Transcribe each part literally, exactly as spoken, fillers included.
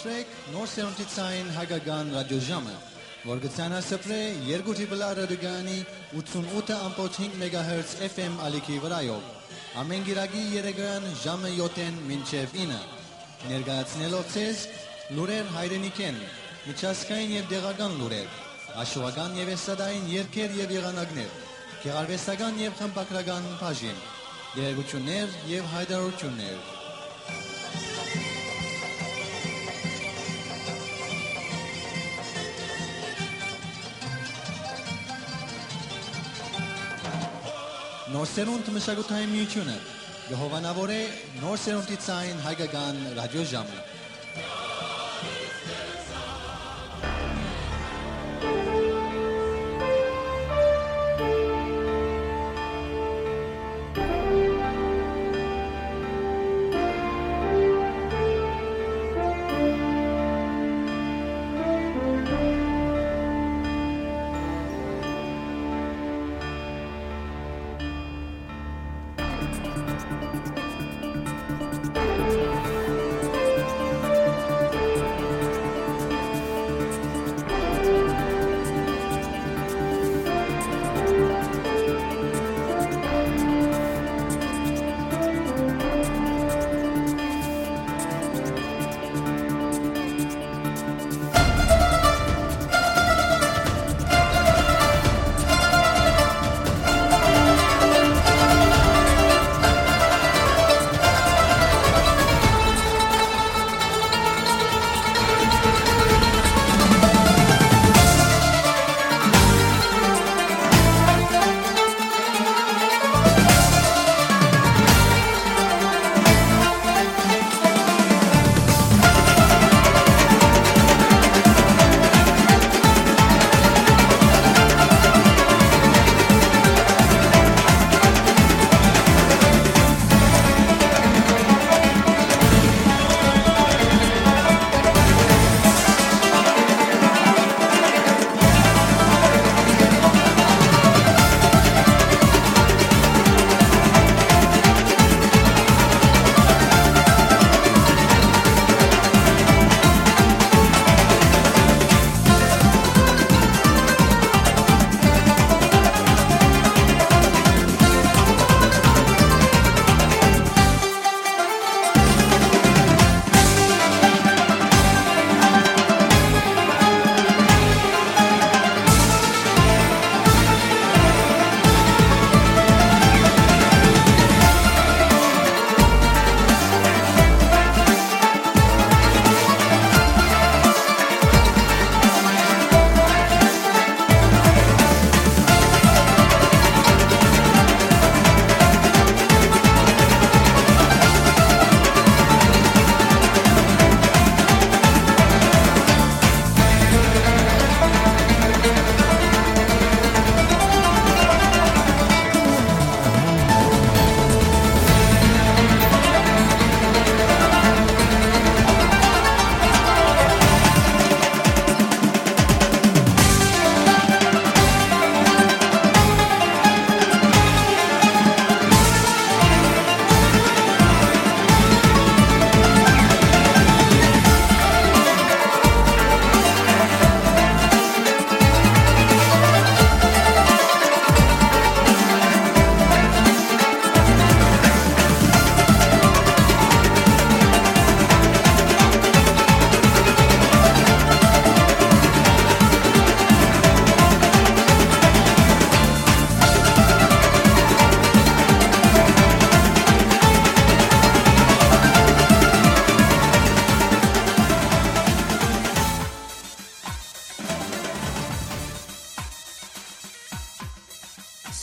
Նոր սերունդի ցային հայկական ռադիոժամը, որ կը ցանասպրէ երկու Triple R ռադիոկայանի ութսունութ ըմբոց հինգ մեգահերց F M ալիքի վրայով, ամէն կիրակի երեկոյեան ժամը յոթ մինչեւ ինը, ներկայացնելով ձեզ լուրեր հայրենիքէն, միջազգային եւ տեղական լուրեր, հաշուական եւ էստրադային երգեր եւ եղանակներ, գեղարուեստական եւ խմբագրական բաժին, տեղեկութիւններ եւ յայտարարութիւններ։ Նոր սերունդ մշակութային միութիւնը կը հովանաւորէ նոր սերունդի ցային հայկական ռադիոժամը։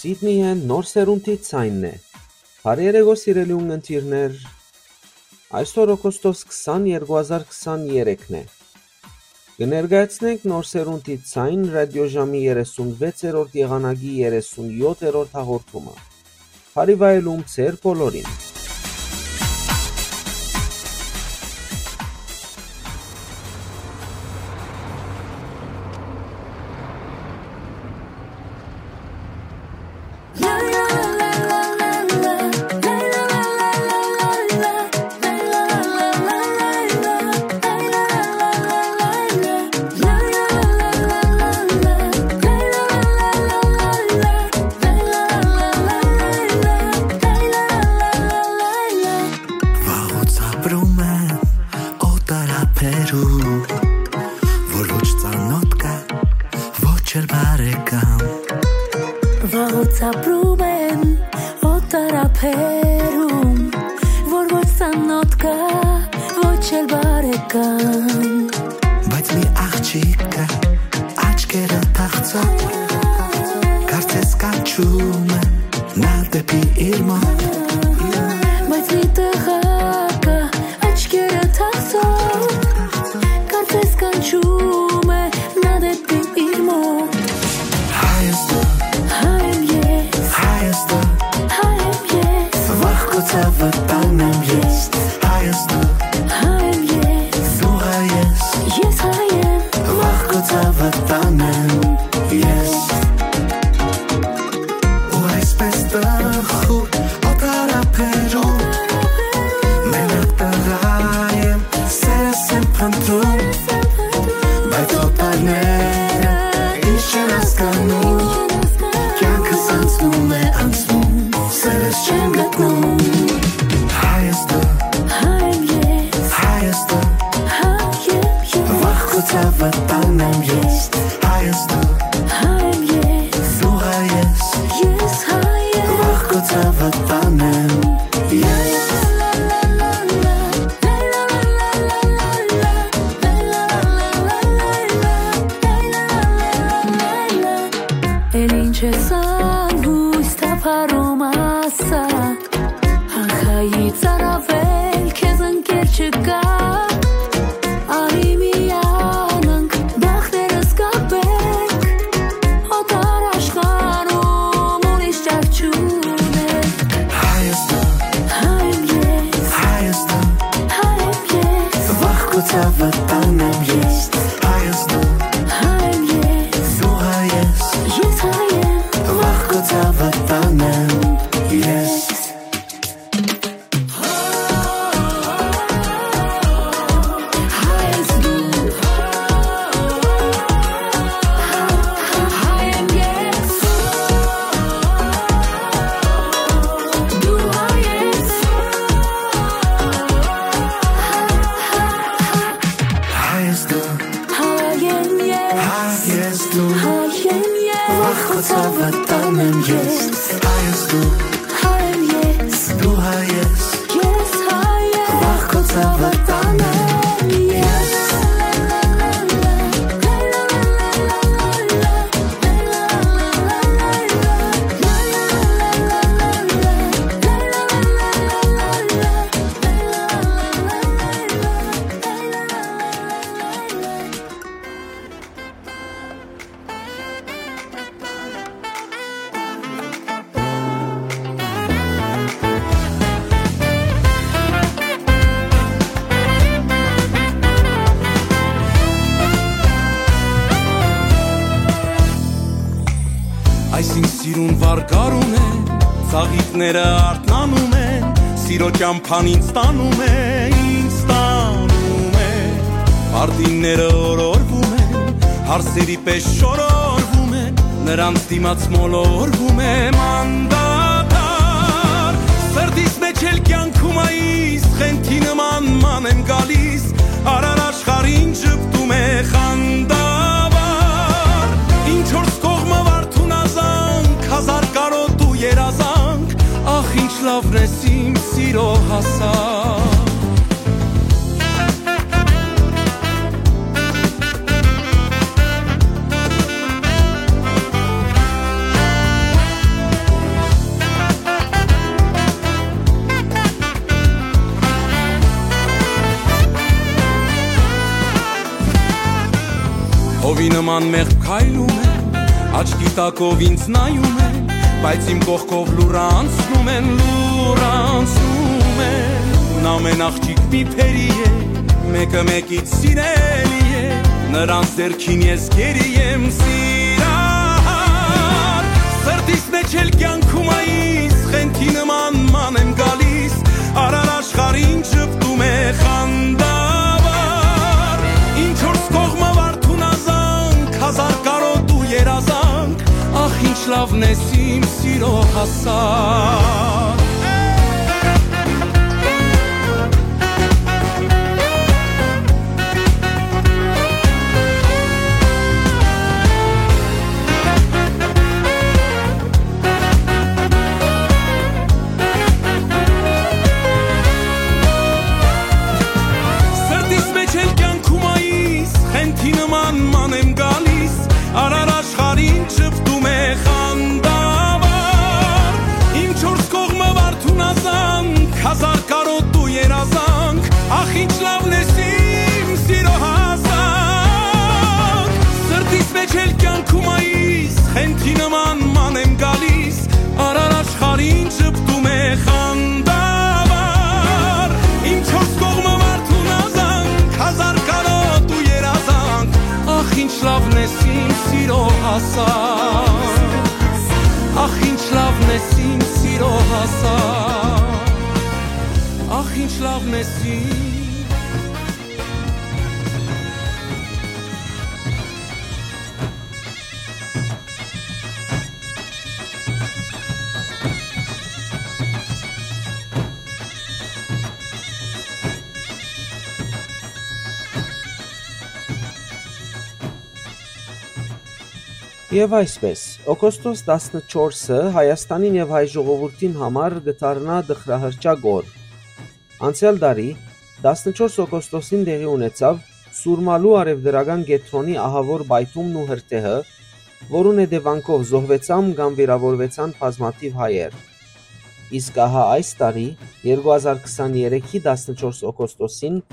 Սիդնիյէն նոր սերունդի ցայնն է։ Բարի երեկո, սիրելի ունգընտիրներ։ Այսօր օգոստոս քսան, երկու հազար քսան երեքն է։ Կը ներկայացնենք նոր սերունդի ցայն ռադիոժամի երեսունվեցերորդ եղանակի երեսունյոթերորդ հաղորդումը։ Բարի վայելում ձեր բոլորին։ Եր բարեկամ։ Վաղուց ապրում են օտարաբերում, որ ոչ ծանոթ կայ, ոչ էլ բարեկամ։ Բայց մի աղջիկ կայ, աչքերը թախծող, կարծես կանչում է նա դեպի իր մոտ։ Բայց մի տղա կայ, աչքերը թախծող, կարծես կանչում է նա դեպի իր մոտ։ Հայ ես դու, հայ եմ ես, հայ ես դու, հայ եմ ես, վախ քո ցաւը տանեմ ես։ Հայ ես դու, հայ եմ ես, դու հայ ես, ես հայ եմ, վախ քո ցաւը տանեմ ես։ Ու այսպես տխուր օտարաբերում, մենակ տղայ եմ, սերս եմ փնտրում, բայց օտարները ինչ չեն հասկանում, կյանքս անցնում է, անցնում, սերս չեմ գտնում։ Հայ ես դու, հայ եմ ես, հայ ես դու, հայ եմ ես, վախ քո ցաւը տանեմ ես։ Հայ ես դու, հայ եմ ես, դու հայ ես, ես հայ եմ, վախ քո ցաւը տանեմ ես։ Էլ ինչ ես անհույս թափառում, ասա, ահա ի ծարավել քեզ ընկեր չկա, արի միանանք, բախտերս կապենք, օտար աշխարհում ուրիշ ճար չունենք։ Հայ ես դու, հայ եմ ես, հայ ես դու, հայ եմ ես, վախ քո ցաւը տանեմ ես։ Հայ ես դու, հայ եմ ես, դու հայ ես, ես հայ եմ, վախ քո ցաւը տանեմ ես։ Հայ ես դու, հայ եմ ես, դու հայ ես, հայ ես դու, հայ եմ ես, հայ ես դու, հայ եմ ես, վախ քո ցաւը տանեմ ես։ Հայ ես դու, հայ եմ ես, դու հայ ես, ես հայ եմ, վախ քո ցաւը տանեմ ես։ Այսինք սիրուն վարկար ունեն, ծաղիկները արթնանում են, սիրո ճամբան ինձ տանում է, ինձ տանում է։ Պարտինները օրորվում են, հարսերի պես շորորվում են, նրանց դիմաց մոլորվում եմ անդադար։ Սրտիս մեջ էլ կյանքում այս խենթի նման ման եմ գալիս, արար աշխարհին ժպտում է խանդավառ։ Ինչ որ կողմը վարդուն ազանք, հազար կարոտ ու երազանք, ախ, ինչ լավն ես իմ սիրո հասակ։ Հովի նման մեղմ քայլում են, աչքի տակով ինձ նայում են, բայց իմ կողքով լուր անցնում են, լուր անցնում են։ Ամեն աղջիկ մի փերի է, մեկը մեկից սիրելի է, նրանց դերքին ես գերի եմ սիրահար։ Սրտիս մեջ էլ կյանքում այս խենթի նման ման եմ գալիս, արար աշխարհին ժպտում է խանդավառ։ Ինչ որ կողմը վարդուն ազանք, հազար կարոտ ու երազանք, ախ, ինչ լավն ես իմ սիրո հասակ։ Խանդավառ, իմ չորս կողմը մարդուն ազանք, հազար կարօտ ու երազանք։ Ախ, ինչ լավն ես իմ սիրո հասակ, ախ, ինչ լավն ես իմ սիրո հասակ, ախ, ինչ լավն ես իմ։ Եւ այսպէս, օգոստոս տասնչորսը Հայաստանին եւ հայ ժողովուրդին համար կը դառնայ տխրահռչակ օր։ Անցեալ տարի, տասնչորս օգոստոսին տեղի ունեցաւ Սուրմալու արեւտրական կեդրոնի ահաւոր պայթումն ու հրդեհը, որուն հետեւանքով զոհուեցան կամ վիրաւորուեցան բազմաթիւ հայեր։ Իսկ ահա այս տարի, երկու հազար քսաներեքի տասնչորս օգոստոսին,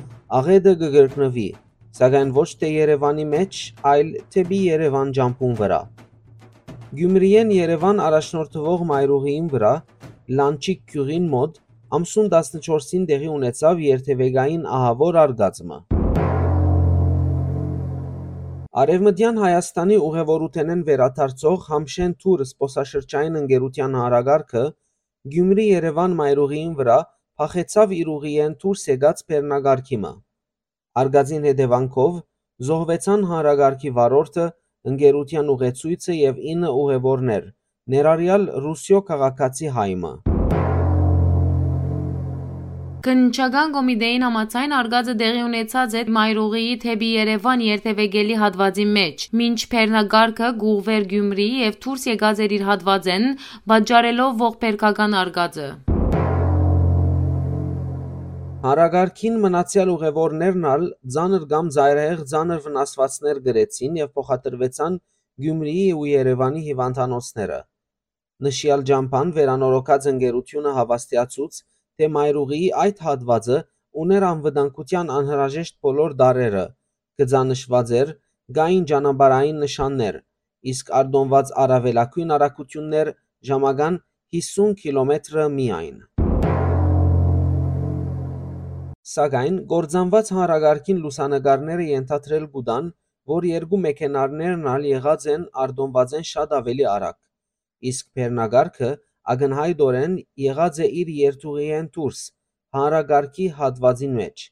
աղէտը կը կրկնուի, սակայն ոչ թէ Երեւանի մէջ, այլ դէպի Երեւան ճամբուն վրայ։ Գիումրիէն Երեւան առաջնորդուող մայրուղիին վրայ, Լանչիկ գիւղին մօտ, ամսուն տասնչորսին տեղի ունեցաւ երթեւեկային ահաւոր արկածը։ Արեւմտեան Հայաստանի ուղեւորութենէն վերադարձող Համշեն Թուր զբօսաշրջային ընկերութեան հանրակարգը Գիումրի Երեւան մայրուղիին վրայ փախեցաւ իր ուղիէն դուրս եկած բեռնակարգի մը։ Արկածին հետեւանքով զոհուեցան հանրակարգի վարորդը, ընկերութեան ուղեցոյցը եւ ինը ուղեւորներ, ներառեալ Ռուսիոյ քաղաքացի հայ մը։ Քննչական կոմիտէին համաձայն, արկածը տեղի ունեցած է մայրուղիի դէպի Երեւան երթեւեկելի հատուածին մէջ, մինչ բեռնակարգը կ'ուղղուէր Գիումրի եւ դուրս եկած էր իր հատուածէն, պատճառելով ողբերգական արկածը։ Հանրակարգին մնացեալ ուղեւորներն ալ ծանր կամ ծայրահեղ ծանր վնասուածներ կրեցին եւ փոխադրուեցան Գիումրիի ու Երեւանի հիւանդանոցները։ Նշեալ ճամբան վերանորոգած ընկերութիւնը հաւաստիացուց, թէ մայրուղիի այդ հատուածը ունէր անվտանգութեան անհրաժեշտ բոլոր տարրերը, գծանշուած էր, կային ճանապարհային նշաններ, իսկ արտոնուած առաւելագոյն արագութիւններ ժամական հիսուն կիլոմետրը միայն։ Սակայն գործանուած հանրակարգին լուսանկարները ենթադրել կու տան, որ երկու մեքենարներն ալ եղած են արտոնուածէն շատ աւելի արագ, իսկ բեռնակարգը ակնյայտօրէն եղած է իր երթուղիէն դուրս, հանրակարգի հատուածին մէջ։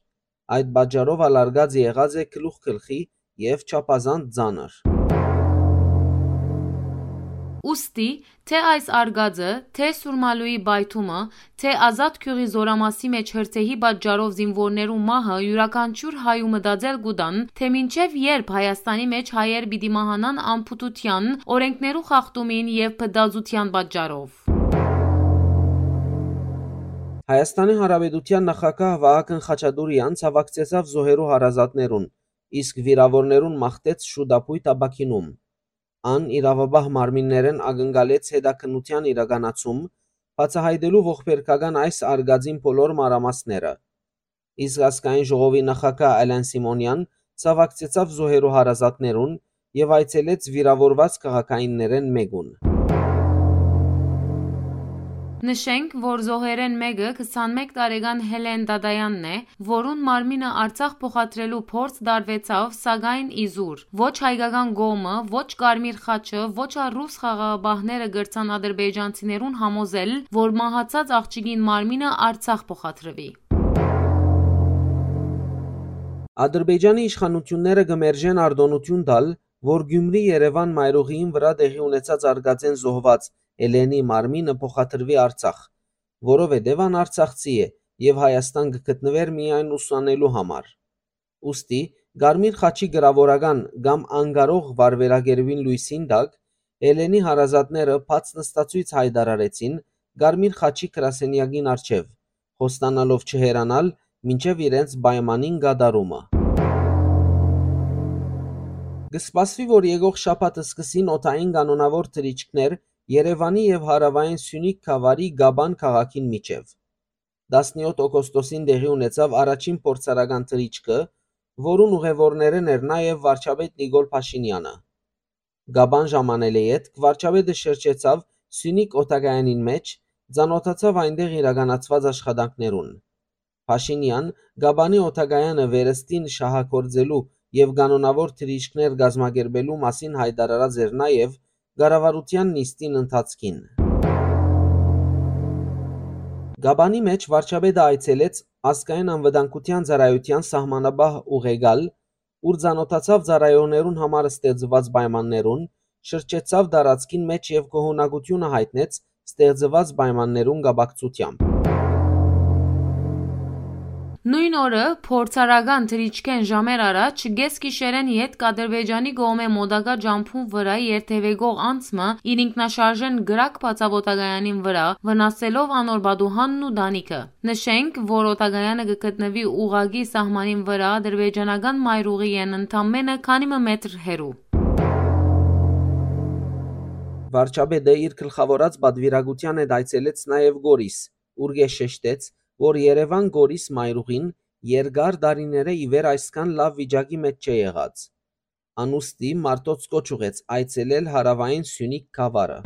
Այդ պատճառով ալ արկածը եղած է գլուխ գլխի եւ չափազանց ծանր։ Ուստի, թէ այս արկածը, թէ Սուրմալուի պայթումը, թէ Ազատ գիւղի Զորամասի մէջ հրդեհի պատճառով զինուորներու մահը, իւրաքանչիւր հայու մտածել կու տան, թէ մինչեւ երբ Հայաստանի մէջ հայեր պիտի մահանան անփութութեան, օրէնքներու խախտումին եւ փտածութեան պատճառով։ Հայաստանի Հանրապետութեան նախագահ Վահագն Խաչատուրեան ցաւակցեցաւ զոհերու հարազատներուն, իսկ վիրաւորներուն մաղթեց շուտապոյտ ապաքինում։ Ան իրաւապահ մարմիններէն ակնկալեց հետաքննութեան իրականացում, բացահայտելու ողբերգական այս արկածին բոլոր մանրամասները։ Իսկ ազգային ժողովի նախագահ Ալեն Սիմոնեան ցաւակցեցաւ զոհերու հարազատներուն եւ այցելեց վիրաւորուած քաղաքայիններէն մէկուն։ Նշենք, որ զոհերէն մէկը քսանմէկ տարեկան Հելեն Դադայանն է, որուն մարմինը Արցախ փոխադրելու փորձ տարուեցաւ, սակայն իզուր։ Ոչ հայկական կողմը, ոչ Կարմիր խաչը, ոչ ալ ռուս խաղաղապահները կրցան ադրբեջանցիներուն համոզել, որ մահացած աղջիկին մարմինը Արցախ փոխադրուի։ Ադրբեջանի իշխանութիւնները կը մերժեն արտօնութիւն տալ, որ Գիումրի Երեւան մայրուղիին վրայ տեղի ունեցած արկածէն զոհուած Էլենի մարմինը փոխադրուի Արցախ, որովհետեւ ան արցախցի է եւ Հայաստան կը գտնուէր միայն ուսանելու համար։ Ուստի, Կարմիր խաչի կրաւորական կամ անկարող վարվերագերուին լոյսին տակ, Էլենի հարազատները բաց նստացոյց յայտարարեցին Կարմիր խաչի գրասենեակին առջեւ, խոստանալով չհեռանալ մինչեւ իրենց պայմանին կատարումը։ Կը սպասուի, որ եկող շաբաթ սկսին օդային կանոնաւոր թռիչքներ Երեւանի եւ հարաւային Սիւնիք գաւառի Կաբան քաղաքին միջեւ։ Տասնեօթ օգոստոսին տեղի ունեցաւ առաջին փորձարական թռիչքը, որուն ուղեւորներէն էր նաեւ վարչապետ Նիկոլ Փաշինեանը։ Կաբան ժամանել է ետք վարչապետը շրջեցաւ Սիւնիք օդակայանին մէջ, ծանօթացաւ այնտեղ իրականացուած աշխատանքներուն։ Փաշինեան Կապանի օդակայանը վերստին շահագործելու եւ կանոնաւոր թռիչքներ կազմակերպելու մասին յայտարարած էր նաեւ կառավարութեան նիստին ընթացքին։ Կապանի մէջ վարչապետը այցելեց Ազգային անվտանգութեան ծառայութեան սահմանապահ ուղեկալ, ուր ծանօթացաւ ծառայողներուն համար ստեղծուած պայմաններուն, շրջեցաւ տարածքին մէջ եւ գոհունակութիւնը յայտնեց ստեղծուած պայմաններուն կապակցութեամբ։ Նոյն օրը, փորձառական թռիչքէն ժամեր առաջ, կէս գիշերէն ետք Ադրբեջանի կողմէ մոտակայ ճամբուն վրայ երթեւեկող անձ մը իր ինքնաշարժէն կրակ բացաւ օդակայանին վրայ, վնասելով անոր պատուհանն ու տանիքը։ Նշենք, որ օդակայանը կը գտնուի ուղղակի սահմանին վրայ ադրբեջանական մայրուղիէն ընդամենը քանի մը մետր հեռու։ Վարչապետը իր գլխաւորած պատուիրակութեան հետ այցելեց նաեւ Կորիս, ուր կը շեշտեց, որ Երեւան-Կորիս մայրուղին երկար տարիներէ ի վեր այսքան լաւ վիճակի մէջ չէ եղած։ Անուստի մարդոց կոչ ուղղեց այցելել հարաւային Սիւնիք գաւառը։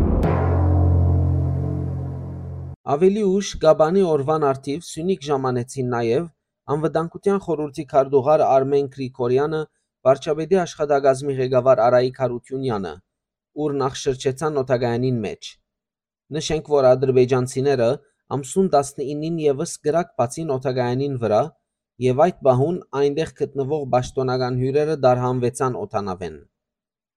Աւելի ուշ Կապանի օրուան առթիւ Սիւնիք ժամանեցին նաեւ Անվտանգութեան խորհուրդի քարտուղար Արմեն Գրիգորեանը, վարչապետի աշխատակազմի ղեկավար Արայիկ Յարութիւնեանը, ուր նախ շրջեցան օդակայանին մէջ։ Նշենք, որ ադրբեջանցիները ամսուն տասնիննին եւս կրակ բացին օդակայանին վրայ եւ այդ պահուն այնտեղ գտնուող պաշտօնական հիւրերը տարհանուեցան օդանաւէն։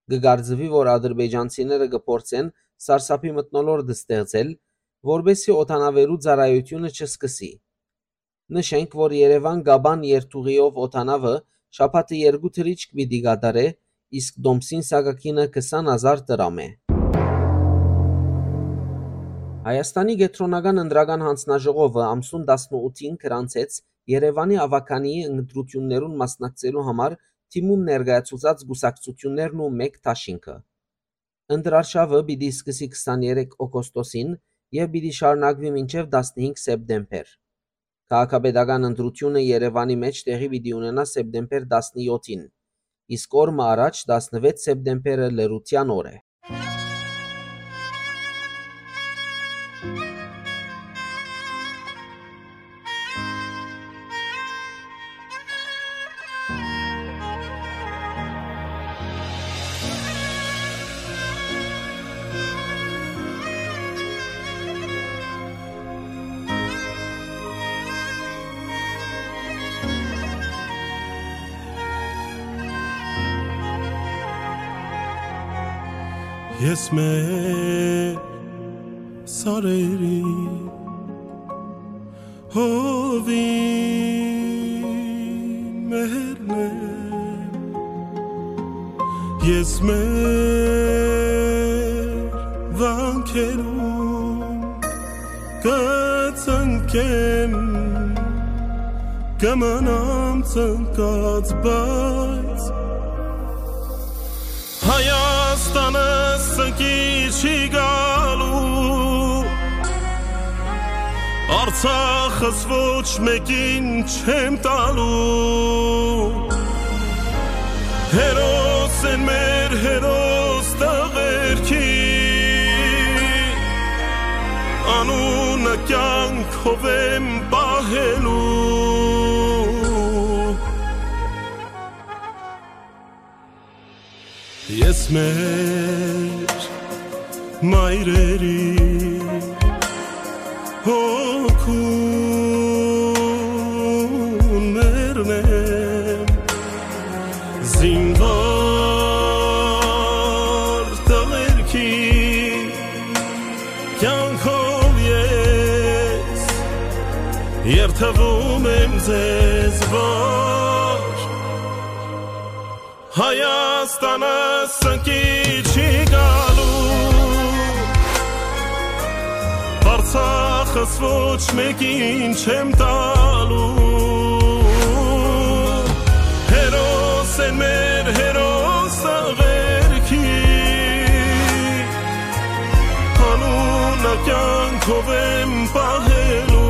Կը կարծուի, որ ադրբեջանցիները կը փորձեն սարսափի մթնոլորտ ստեղծել, որպէսզի օդանաւերու ծառայութիւնը չսկսի։ Նշենք, որ Երեւան-Կապան երթուղիով օդանաւը շաբաթը երկու թռիչք պիտի կատարէ, իսկ տոմսին սակագինը քսան հազար դրամ է։ Հայաստանի կեդրոնական ընտրական յանձնաժողովը ամսուն տասնութին գրանցեց Երեւանի աւագանիի ընտրութիւններուն մասնակցելու համար դիմում ներկայացուցած կուսակցութիւններն ու մէկ դաշինքը։ Ընտրարշաւը պիտի սկսի քսաներեք օգոստոսին եւ պիտի շարունակուի մինչեւ տասնհինգ սեպտեմբեր։ Քաղաքապետական ընտրութիւնը Երեւանի մէջ տեղի պիտի ունենայ սեպտեմբեր տասնեթին, իսկ օր մը առաջ, տասնեթի սեպտեմբերը, լռութեան օր է։ Ես մեր սարերի հովին մերն եմ, ես մեր վանքերուն կծնկեմ, կմնամ ծնկած, բայց Հայաստանը սնկի չի գալու, Արցախս ոչ մեկին չեմ տալու։ Հերոս են մեր հերոս տղերքի, անունը կյանքով եմ պահելու։ Ես մեր մայրերի հոգուն մերն եմ, զինվոր տղերքի կյանքով ես երդվում եմ ձեզ, որ Հայաստանը սնկի չի գալու, Արցախս ոչ մեկին չեմ տալու։ Հերոս են մեր հերոս աղերքի, անունը կյանքով եմ պահելու։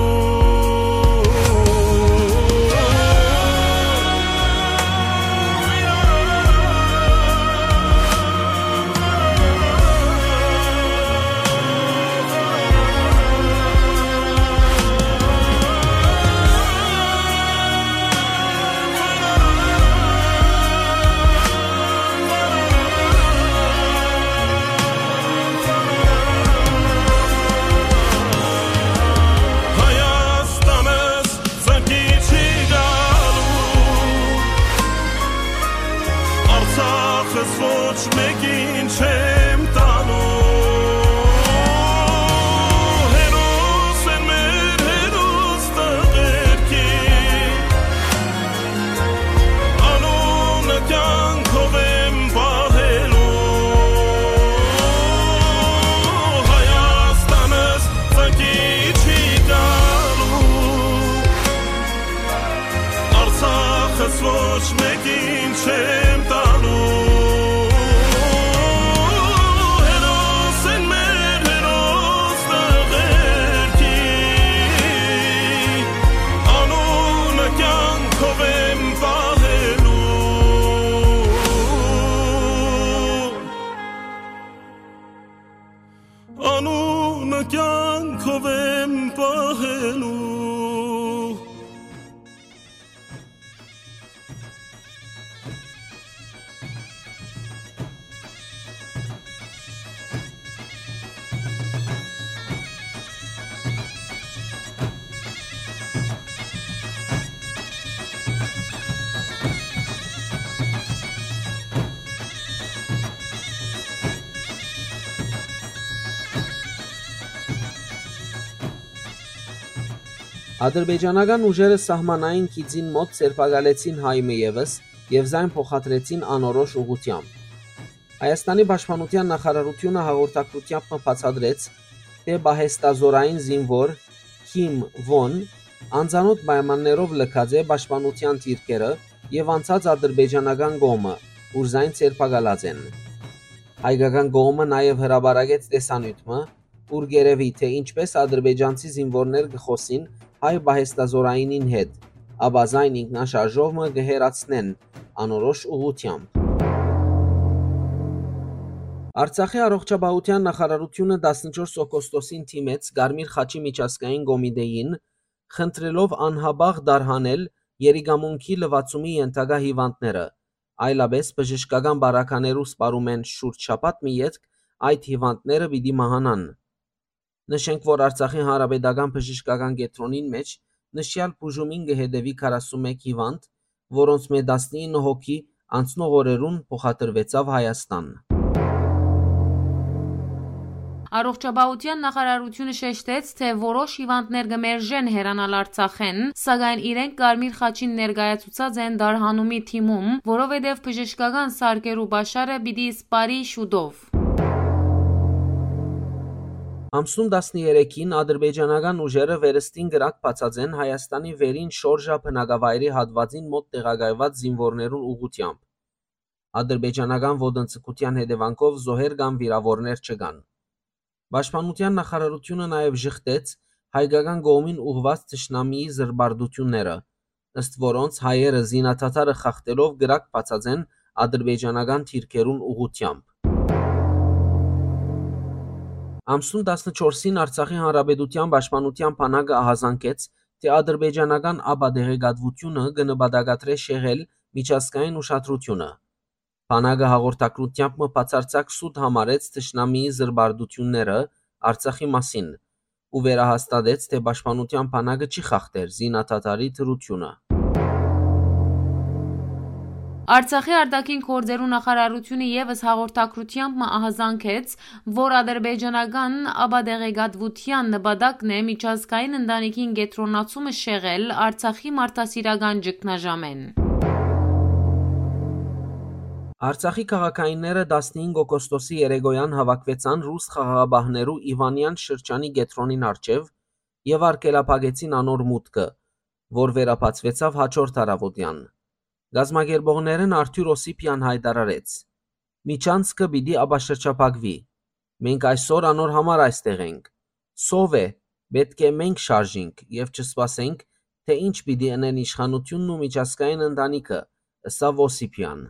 Ինչ չեմ տալու, հերոս են մեր հերոս տղերքի, անունը կյանքով եմ պահելու, Հայաստանս ծակի չի գալու, Արցախս ոչ մեկին չեմ տալու, հերոս են մեր հերոս տղերքի, անունը կյանքով եմ պահելու, անունը կյանքով եմ պահելու։ Ադրբեջանական ուժերը սահմանային գիծին մօտ ձերբակալեցին հայ մը ևս եւ զայն փոխադրեցին անորոշ ուղղությամբ։ Հայաստանի պաշտպանութեան նախարարութիւնը հաղորդակցութեամբ մը բացատրեց, թէ պահեստազօրային զինուոր Քիմ Վոն անծանօթ պայմաններով լքած է պաշտպանութեան դիրքերը եւ անցած ադրբեջանական կողմը, ուր զայն ձերբակալած են։ Հայկական կողմը նաեւ հրապարակեց տեսանիւթ մը, ուր կ'երեւի, թէ ինչպէս ադրբեջանցի զինուորներ կը խօսին հայ պահեստազօրայինին հետ, ապա զայն ինքնաշարժով մը կը հեռացնեն անորոշ ուղղությամբ։ Արցախի առողջապահութեան նախարարութիւնը տասնչորս օգոստոսին դիմեց Կարմիր խաչի միջազգային կոմիտեին, խնդրելով անհապաղ տարհանել երիկամունքի լուացումի ենթակայ հիւանդները, այլապէս բժշկական պարագաներու սպառումէն շուրջ շաբաթ մը ետք այդ հիւանդները պիտի մահանան։ Նշենք, որ Արցախի Հանրապետական բժշկական կեդրոնին մէջ նշեալ բուժումին կը հետեւի քառասունմէկ հիւանդ, որոնցմէ տասնինը հոգի անցնող օրերուն փոխադրուեցաւ Հայաստան։ Առողջապահութեան նախարարութիւնը շեշտեց, թէ որոշ հիւանդներ կը մերժեն հեռանալ Արցախէն, սակայն իրենք Կարմիր խաչին ներկայացուցած են տարհանումի թիմում, որովհետեւ բժշկական սարքերու պաշարը պիտի սպառի շուտով։ Ամսուն տասներեքին ադրբեջանական ուժերը վերստին կրակ բացած են Հայաստանի վերին շորժա բնակավայրի հատուածին մօտ տեղակայուած զինուորներուն ուղղութեամբ։ Ադրբեջանական ոտնձգութեան հետեւանքով զոհեր կամ վիրաւորներ չկան։ Պաշտպանութեան նախարարութիւնը նաեւ ժխտեց հայկական կողմին ուղղուած թշնամիի զրպարտութիւնները, ըստ որոնց հայերը զինադադարը խախտելով կրակ բացած են ադրբեջանական դիրքերուն ուղղութեամբ։ Ամսուն տասնչորսին Արցախի Հանրապետութեան պաշտպանութեան բանակը ահազանգեց, թէ ադրբեջանական ապատեղեկատվութիւնը կը նպատակադրէ շեղել միջազգային ուշադրութիւնը։ Բանակը հաղորդակցութեամբ մը բացարձակ սուտ համարեց թշնամիի զրպարտութիւնները Արցախի մասին ու վերահաստատեց, թէ պաշտպանութեան բանակը չի խախտեր զինադադարի դրութիւնը։ Արցախի արտաքին գործերու նախարարութիւնը եւս հաղորդակցութեամբ մը ահազանգեց, որ ադրբեջանական ապատեղեկատվութեան նպատակն է միջազգային ընտանիքին կեդրոնացումը շեղել Արցախի մարդասիրական ճգնաժամէն։ Արցախի քաղաքայինները տասնհինգ օգոստոսի երեկոյան հաւաքուեցան ռուս խաղաղապահներու Իվանեան շրջանի կեդրոնին առջեւ եւ արգելափակեցին անոր մուտքը, որ վերաբացուեցաւ հաջորդ առաւօտեան։ Կազմակերպողներէն Արթուր Օսիպեան յայտարարեց. «Միջանցքը պիտի ապաշրջափակուի։ Մենք այսօր անոր համար այստեղ ենք։ Սով է, պէտք է մենք շարժինք եւ չսպասենք, թէ ինչ պիտի ընեն իշխանութիւնն ու միջազգային ընտանիքը», ըսաւ Օսիպեան։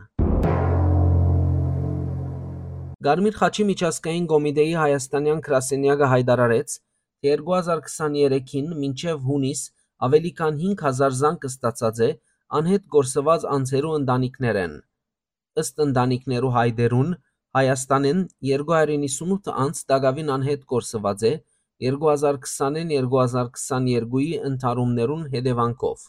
Կարմիր խաչի միջազգային կոմիտեի հայաստանեան գրասենեակը յայտարարեց, թէ երկու հազար քսաներեքին մինչեւ յունիս աւելի քան հինգ հազար զանգ ստացած է անհետ կորսուած անձերու ընտանիքներէն։ Ըստ ընտանիքներու յայտերուն, Հայաստանէն երկու հարիւր իննսունութ անձ տակաւին անհետ կորսուած է երկու հազար քսանին երկու հազար քսաներկուի ընդհարումներուն հետեւանքով։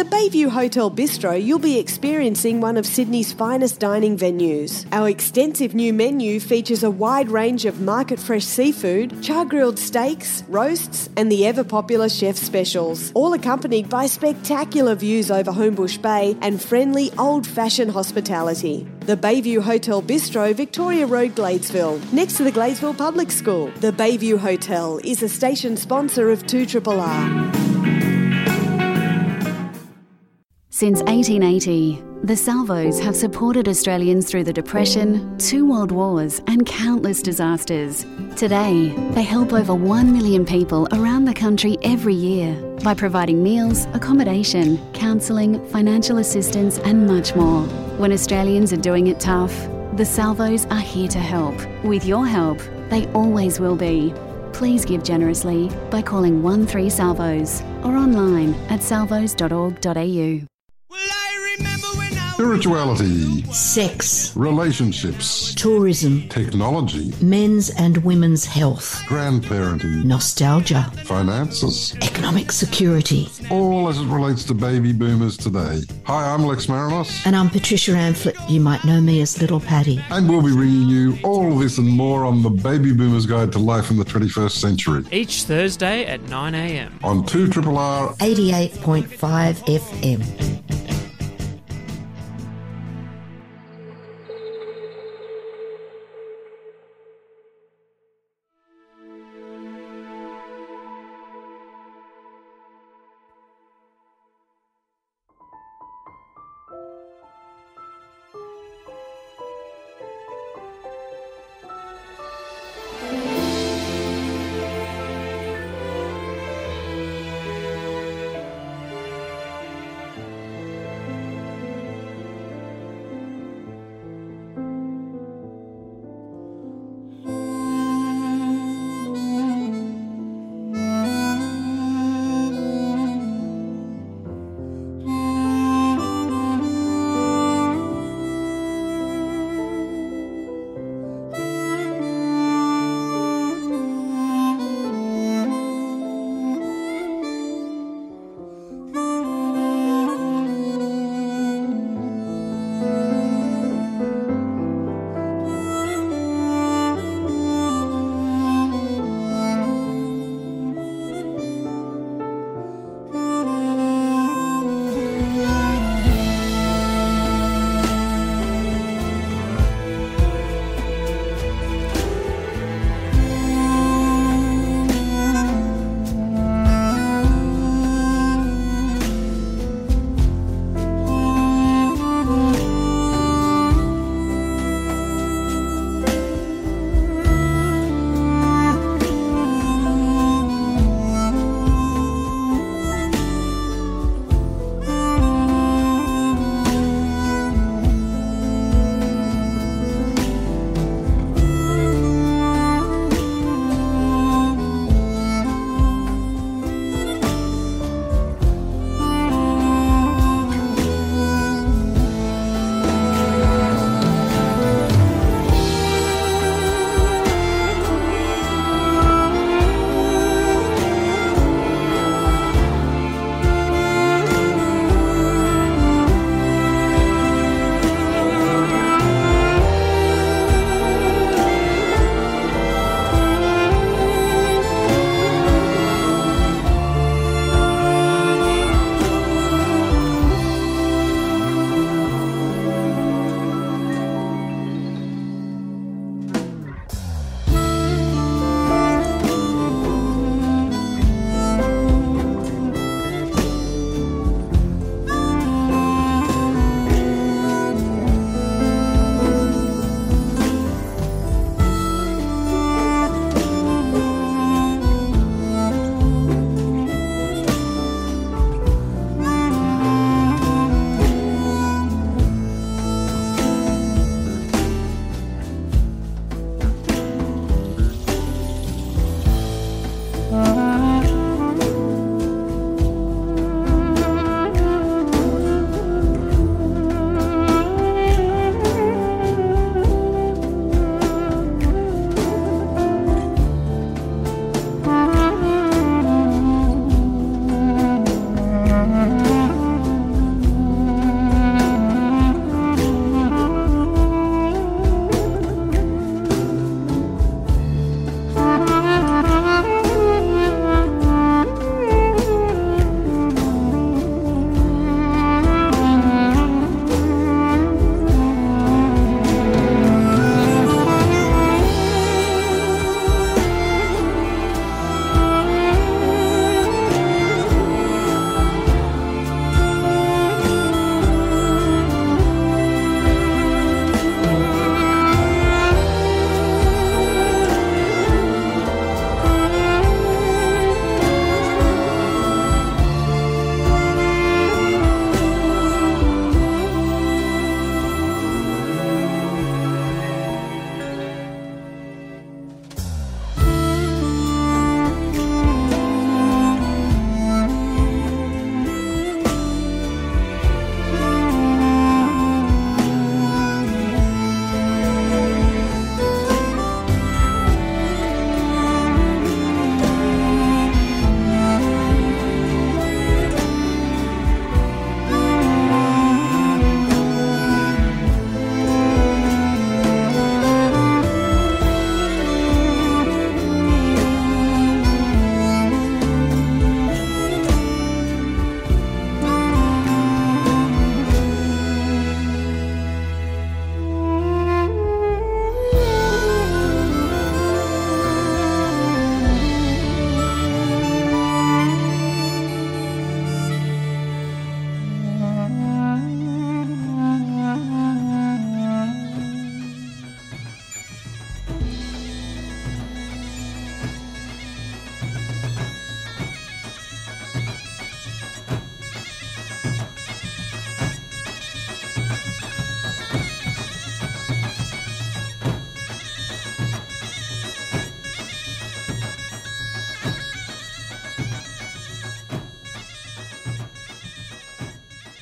Bayview Hotel Bistro, you'll be experiencing one of Sydney's finest dining venues. Our extensive new menu features a wide range of market fresh seafood, char grilled steaks, roasts, and the ever popular chef specials, all accompanied by spectacular views over Homebush Bay and friendly old fashioned hospitality. The Bayview Hotel Bistro, Victoria Road, Gladesville, next to the Gladesville Public School. The Bayview Hotel is a station sponsor of two triple R. Since eighteen eighty, the Salvos have supported Australians through the Depression, two world wars, and countless disasters. Today, they help over one million people around the country every year by providing meals, accommodation, counselling, financial assistance, and much more. When Australians are doing it tough, the Salvos are here to help. With your help, they always will be. Please give generously by calling one three Salvos or online at salvos.org.au. Spirituality, sex, relationships, tourism, technology, men's and women's health, grandparenting, nostalgia, finances, economic security, all as it relates to baby boomers today. Hi, I'm Lex Marinos. And I'm Patricia Amphlett. You might know me as Little Patty. And we'll be bringing you all this and more on the Baby Boomers Guide to Life in the twenty-first Century. Each Thursday at nine a.m. On two triple R eighty-eight point five F M.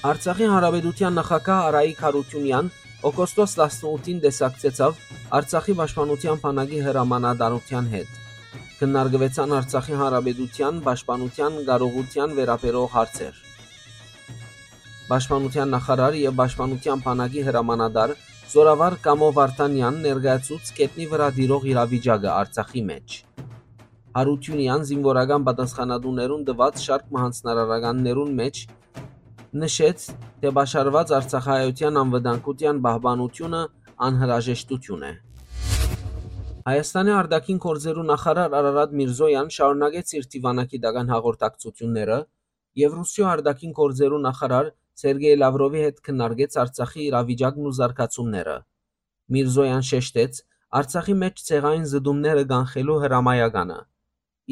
Արցախի Հանրապետութեան նախագահ Արայիկ Յարութիւնեան օգոստոս տասնութին տեսակցեցաւ Արցախի պաշտպանութեան բանակի հրամանատարութեան հետ։ Քննարկուեցան Արցախի Հանրապետութեան պաշտպանութեան կարողութեան վերաբերող հարցեր։ Պաշտպանութեան նախարար եւ պաշտպանութեան բանակի հրամանատար զօրավար Կամո Վարդանեան ներկայացուց գետնի վրայ տիրող իրավիճակը Արցախի մէջ։ Յարութիւնեան զինուորական պատասխանատուներուն տուած շարք մը յանձնարարականներուն մէջ նշեց, թէ պաշարուած արցախահայութեան անվտանգութեան պահպանութիւնը անհրաժեշտութիւն է։ Հայաստանի արտաքին գործերու նախարար Արարատ Միրզոյան շարունակեց իր դիվանագիտական հաղորդակցութիւնները եւ Ռուսիոյ արտաքին գործերու նախարար Սերգեյ Լավրովի հետ քննարկեց Արցախի իրավիճակն ու զարգացումները։ Միրզոյան շեշտեց Արցախի մէջ ցեղային զտումները կանխելու հրամայականը,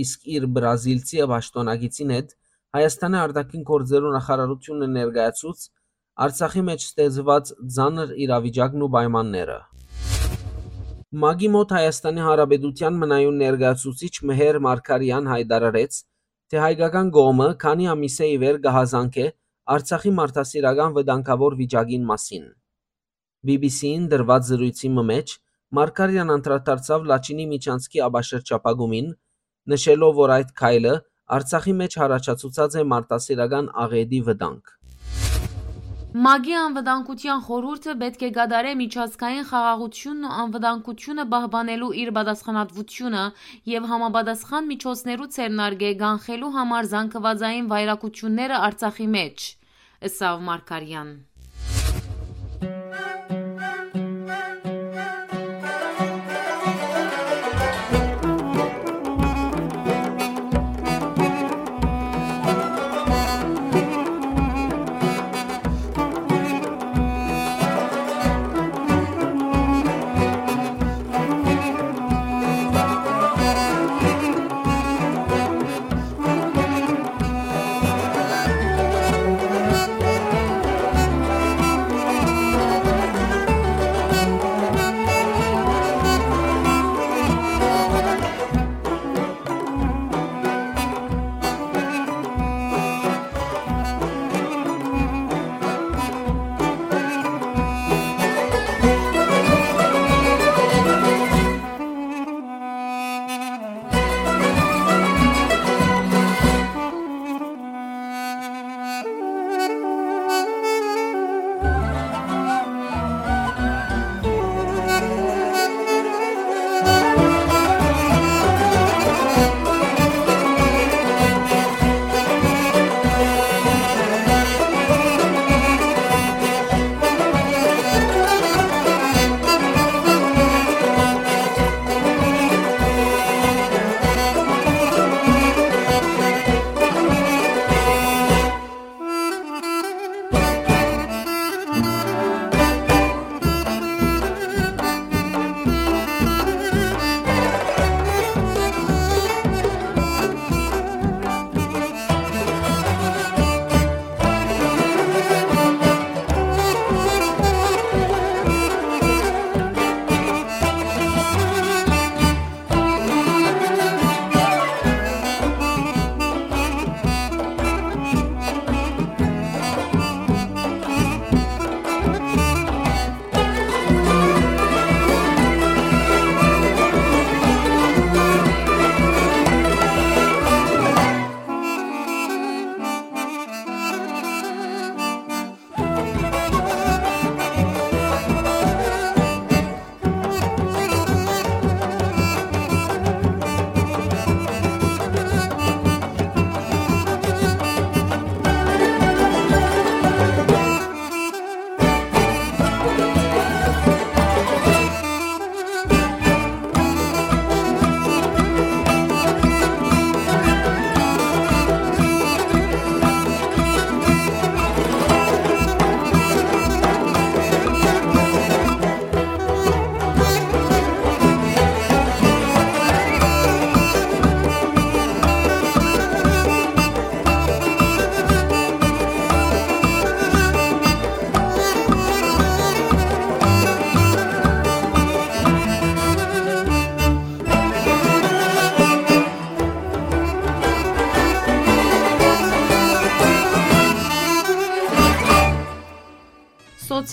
իսկ իր բրազիլցի պաշտօնակիցին հետ Հայաստանի արտաքին գործերու նախարարութիւնը ներկայացուց Արցախի մէջ ստեղծուած ծանր իրավիճակն ու պայմանները։ մակի մօտ Հայաստանի Հանրապետութեան մնայուն ներկայացուցիչ Մհեր Մարգարեան յայտարարեց, թէ հայկական կողմը քանի ամիսէ ի վեր կը հազանգէ Արցախի մարդասիրական վտանգաւոր վիճակին մասին։ B B C-ին տրուած զրոյցի մը մէջ Մարգարեան անդրադարձաւ Լաչինի միջանցքի ապաշրջափակումին, նշելով, որ այդ քայլը Արցախի մէջ յառաջացուցած է մարդասիրական աղէտի վտանգ։ մակի անվտանգութեան խորհուրդը պէտք է կատարէ միջազգային խաղաղութիւնն ու անվտանգութիւնը պահպանելու իր պատասխանատվութիւնը եւ համապատասխան միջոցներու ձեռնարկէ կանխելու համար զանգուածային վայրագութիւնները Արցախի մէջ, ըսաւ Մարգարեան։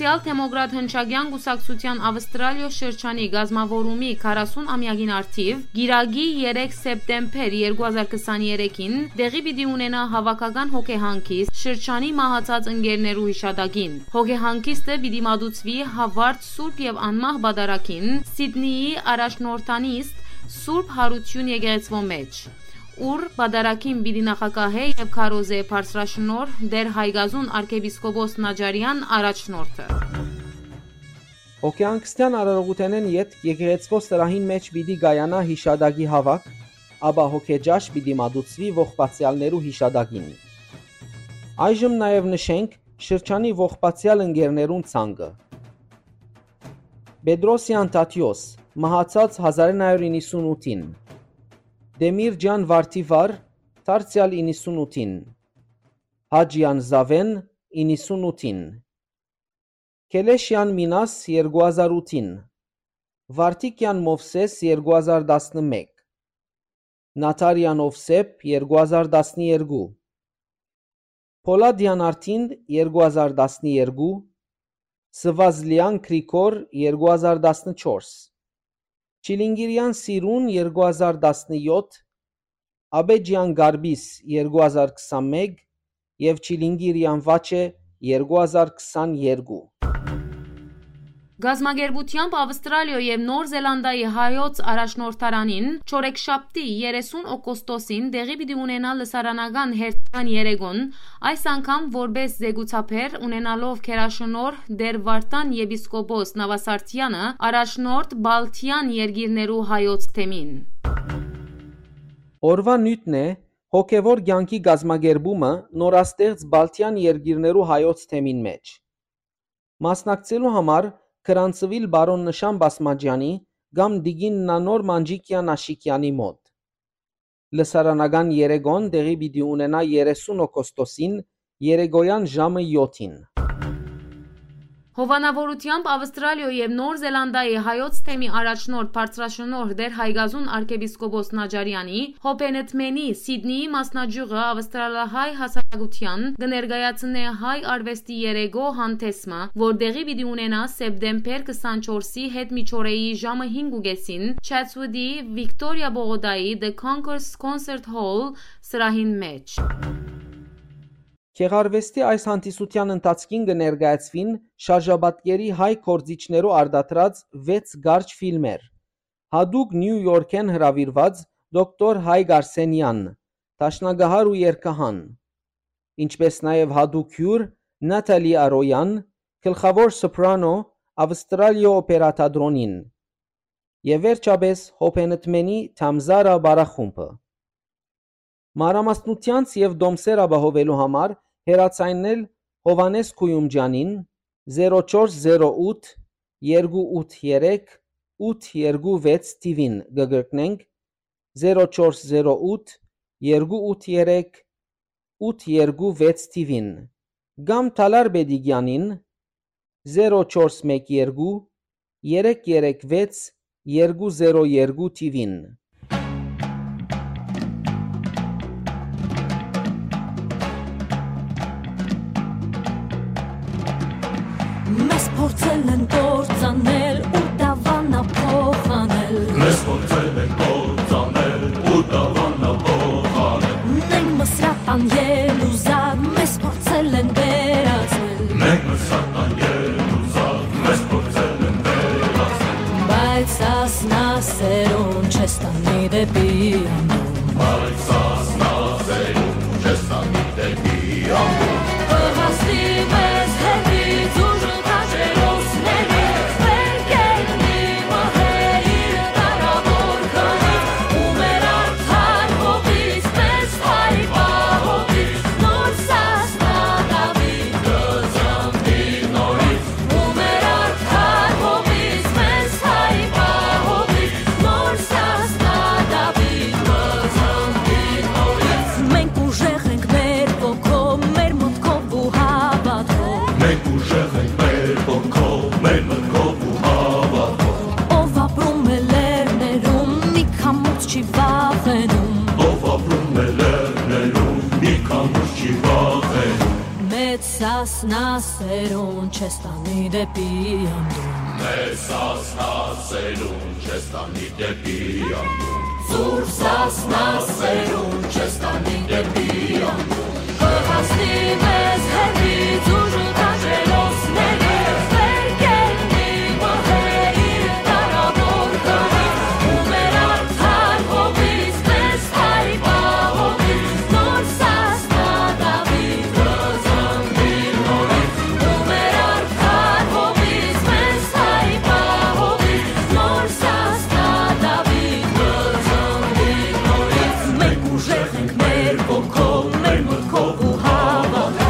Սոցիալ-դեմոկրատ հնչակեան կուսակցութեան Ավստրալիոյ շրջանի կազմաւորումի քառասուն ամեակին առթիւ, կիրակի երեք սեպտեմբեր երկու հազար քսաներեքին, տեղի պիտի ունենայ հաւաքական հոգեհանգիստ շրջանի մահացած ընկերներու յիշատակին։ Հոգեհանգիստը պիտի մատուցուի Հովարդ Սուրբ եւ Անմահ Պատարագին, Սիդնիի առաջնորդանիստ Սուրբ Յարութիւն եկեղեցւոյ մէջ, ուր պատարագին պիտի նախագահէ եւ քարոզէ բարձրաշնորհ Տէր Հայկազուն արքեպիսկոպոս Նաճարեան առաջնորդը։ Հոգեհանգստեան արարողութենէն ետք եկեղեցւոյ սրահին մէջ պիտի կայանայ յիշատակի հաւաք, ապա հոգեճաշ պիտի մատուցուի ողբացեալներու յիշատակին։ Այժմ նաեւ նշենք շրջանի ողբացեալ ընկերներուն ցանկը։ Պետրոսեան Թադէոս, մահացած հազար իննսուն իննսունութին, Տեմիրճեան Վարդիվար, դարձեալ իննսունութին, Հաճեան Զաւէն, իննսունութին, Քելեշեան Մինաս, երկու հազար ութին, Վարդիկեան Մովսէս, երկու հազար տասնմէկ, Նաթարեան Ովսէփ, երկու հազար տասներկու, Փոլադեան Արտինդ, երկու հազար տասներկու, Սվազլեան Գրիգոր, երկու հազար տասնչորս, Չիլինգիրեան Սիրուն, երկու հազար տասնեօթ, Աբեջեան Գարպիս, երկու հազար քսանմէկ, եւ Չիլինգիրեան Վաչէ, երկու հազար քսաներկու։ Կազմակերպութեամբ Ավստրալիոյ եւ Նոր Զելանդիայի հայոց առաջնորդարանին չորեքշաբթի երեսուն օգոստոսին տեղի պիտի ունենայ լսարանական հերթական երեկոն, այս անգամ որպէս զեկուցաբեր, ունենալով գերաշնորհ Տէր Վարդան եպիսկոպոս Նաւասարդեանը, առաջնորդ Բալթեան երկիրներու հայոց թեմին։ Օրուան նիւթն է հոգեւոր կեանքի կազմակերպումը նորաստեղծ Բալթեան երկիրներու հայոց թեմին մէջ։ Մասնակցելու համար գրանցուիլ պարոն Նշան Պասմաճեանի կամ տիկին Նանոր Մանջիկեան Աշիկեանի մօտ։ Լսարանական երեկոն տեղի պիտի ունենայ երեսուն օգոստոսին երեկոյան ժամը եօթին։ Հովանաւորութեամբ Ավստրալիոյ եւ Նոր Զելանդիայի հայոց թեմի առաջնորդ բարձրաշնորհ Տէր Հայկազուն արքեպիսկոպոս Նաճարեանի, Հոբենտմենի Սիդնիի մասնաճիւղը ավստրալահայ հասարակութեան կը ներկայացնէ հայ արուեստի երեկոյ հանդէսը, որ տեղի պիտի ունենայ սեպտեմբեր քսանչորսի հետ միջօրեի ժամը հինգ ու կեսին Չեթսուտի Վիկտորիա պողոտայի The Concourse Concert Hall սրահին մէջ։ Գեղարուեստի այս հանդիսութեան ընթացքին կը ներկայացուին շարժապատկերի հայ գործիչներու արտադրած վեց կարճ ֆիլմեր։ Յատուկ Նիու Յորքէն հրաւիրուած դոկտոր Հայկ Արսենեան, դաշնակահար ու երգահան, ինչպէս նաեւ յատուկ հիւր Նաթալի Արոյան, գլխաւոր սոպրանո Ավստրալիոյ օպերա թատրոնին եւ վերջապէս Հոբենտմենի Թամզարա պարախումբը։ Մանրամասնութեանց եւ տոմսեր ապահովելու համար հեռաձայնել Յովհաննէս Գոյումճեանին, զերո չորս զերո ութ, երկու ութ երեք, ութ երկու վեց թիվին կը կրկնենք, զերո չորս զերո ութ, երկու ութ երեք, ութ երկու վեց թիվին, կամ Թալար Պետիկեանին, զերո չորս մէկ երկու, երեք երեք վեց, երկու զերո երկու թիվին։ Մեզ փորձել են կործանել ու դավանա փոխանել։ Մեզ փորձել են կործանել ու դավանա փոխանել։ Մենք մսրատան ելուզակ, մեզ փորձել են վերածել։ Մենք մսրատան ելուզակ, մեզ փորձել են վերածել։ Բայց սասնասերուն չես տանի դեպի անդուն։ Բայց սասնասերուն չես տանի դեպի անդուն։ Կհասնի մեզ հետից ուժը քաջերոսների, վեր կեննի մահը իր դարավոր քարից, ու մեր արդար հողից մեզ հայ պահողից նոր Սասնա Դաւիթ կծնվի նորից, ու մեր արդար հողից մեզ հայ պահողից նոր Սասնա Դաւիթ կը Սասնասերուն չես տանի դեպի անդուն։ Մեր Սասնասերուն չես տանի դեպի անդուն։ Սուրբ Սասնասերուն չես տանի դեպի անդուն։ Կհասնի մեզ հեռվից ուժ ու քաջերոսների, վեր կեննի մհեր իր դարաւոր հողից, ու մեր արդար հողից, մեզ հայ պահողից, նոր Սասնա Դաւիթ կը ծնվի նորից, ու մեր արդար հողից, մեզ հայ պահողից, նոր Սասնա Դաւիթ կը ծնվի նորից։ Մենք ուժեղ ենք մեր ոգով, մեր մտքով ու հավատքով։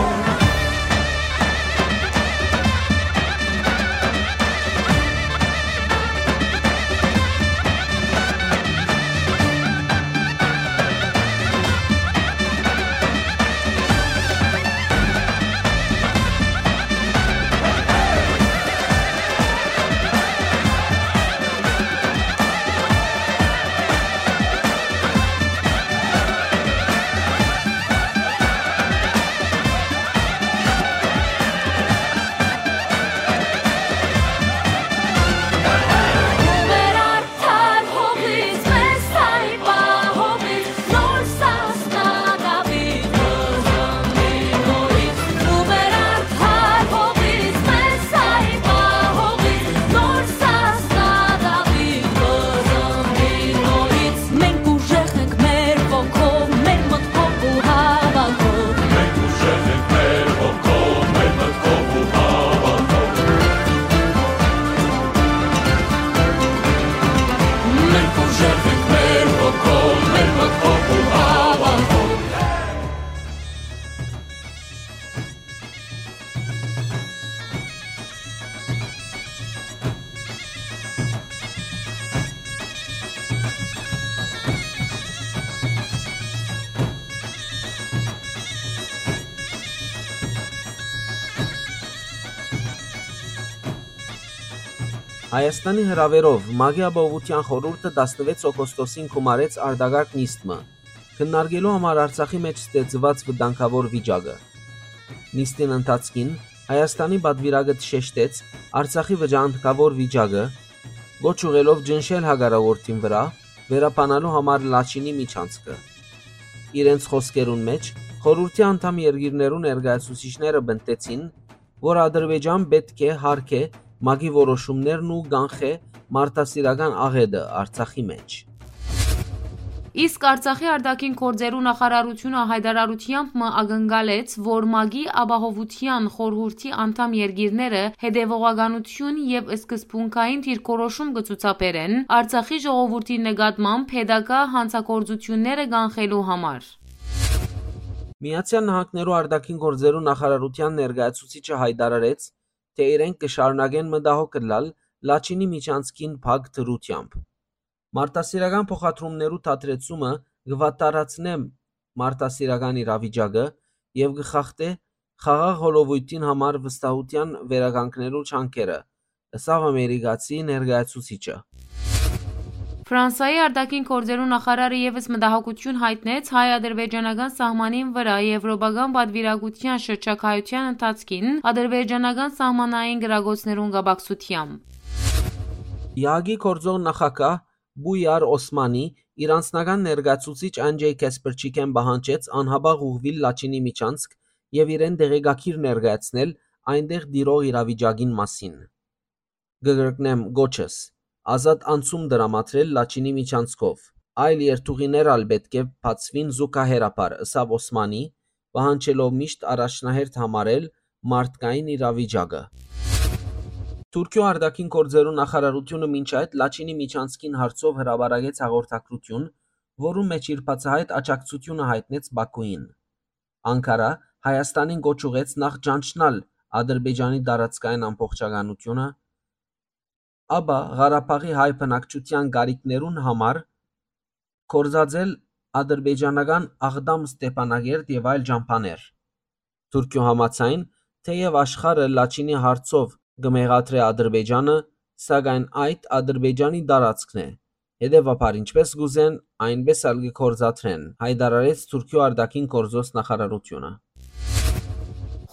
Մենք ուժեղ ենք մեր ոգով, մեր մտքով ու հավատքով։ Մենք ուժեղ ենք մեր ոգով, մեր մտքով ու հավատքով։ Մենք ուժեղ ենք մեր ոգով, մեր մտքով ու հավատքով։ Հայաստանի հրաւերով ՄԱԿ-ի Ապահովութեան խորհուրդը տասնվեց օգոստոսին գումարեց արտակարգ նիստ մը, քննարկելու համար Արցախի մէջ ստեղծուած վտանգաւոր վիճակը։ Նիստին ընթացքին Հայաստանի պատուիրակը շեշտեց Արցախի վտանգաւոր վիճակը, կոչ ուղղելով ճնշել հակառակորդին վրայ, վերաբանալու համար Լաչինի միջանցքը։ Իրենց խօսքերուն մէջ խորհուրդի անդամ երկիրներու ներկայացուցիչները պնդեցին, որ Ադրբեջան պէտք է յարգէ ՄԱԿ-ի որոշումներն ու կանխէ մարդասիրական աղէտը Արցախի մէջ։ Իսկ Արցախի արտաքին գործերու նախարարութիւնը յայտարարութեամբ մը ակնկալեց, որ ՄԱԿ-ի Ապահովութեան խորհուրդի անդամ երկիրները հետեւողականութիւն եւ սկզբունքային դիրքորոշում կը ցուցաբերեն Արցախի ժողովուրդի նկատմամբ հետագայ հանցագործութիւնները կանխելու համար։ Միացեալ Նահանգներու արտաքին գործերու նախարարութեան ներկայացուցիչը յայտարարեց, թէ իրենք կը շարունակեն մտահոգ ըլլալ Լաչինի միջանցքին փակ դրութեամբ։ Մարդասիրական փոխադրումներու դադրեցումը կը վատթարացնէ մարդասիրական իրավիճակը եւ կը խախտէ խաղաղ հոլովոյթին համար վստահութեան վերականգնելու ջանքերը, ըսաւ ամերիկացի ներկայացուցիչը։ Ֆրանսայի արտաքին գործերու նախարարը եւս մտահոգութիւն յայտնեց հայ-ադրբեջանական սահմանին վրայ եվրոպական պատուիրակութեան շրջագայութեան ընթացքին ադրբեջանական սահմանային կրակոցներուն կապակցութեամբ։ ԵԱԿ-ի գործող նախագահ Պույար Օսմանի իր անձնական ներկայացուցիչ Անջեյ Քեսպրչիկեն պահանջեց անհապաղ ուղղուիլ Լաչինի միջանցք եւ իրեն տեղեկագիր ներկայացնել այնտեղ տիրող իրավիճակին մասին։ Կը կրկնեմ կոչս, ազատ անցում տրամադրել Լաչինի միջանցքով։ Այլ երթուղիներ ալ պէտք է բացուին զուգահեռաբար, ըսաւ Օսմանի, պահանջելով միշտ առաջնահերթ համարել մարդկային իրավիճակը։ Թուրքիոյ արտաքին գործերու նախարարութիւնը մինչ այդ Լաչինի միջանցքին հարցով հրապարակեց հաղորդագրութիւն, որուն մէջ իր բացահայտ աջակցութիւնը յայտնեց Բաքուին։ Անկարա Հայաստանին կոչ ուղղեց նախ ճանչնալ Ադրբեջանի տարածքային ամբողջականութիւնը, ապա Ղարաբաղի հայ բնակչութեան կարիքներուն համար գործածել ադրբեջանական Աղդամ Ստեփանագերդ եւ այլ ճամբաներ։ Թուրքիոյ համաձայն, թէեւ աշխարհը Լաչինի հարցով կը մեղադրէ Ադրբեջանը, սակայն այդ Ադրբեջանի տարածքն է։ Հետեւաբար, ինչպէս կ'ուզեն, այնպէս ալ կը գործադրեն, յայտարարեց Թուրքիոյ արտաքին գործոց նախարարութիւնը։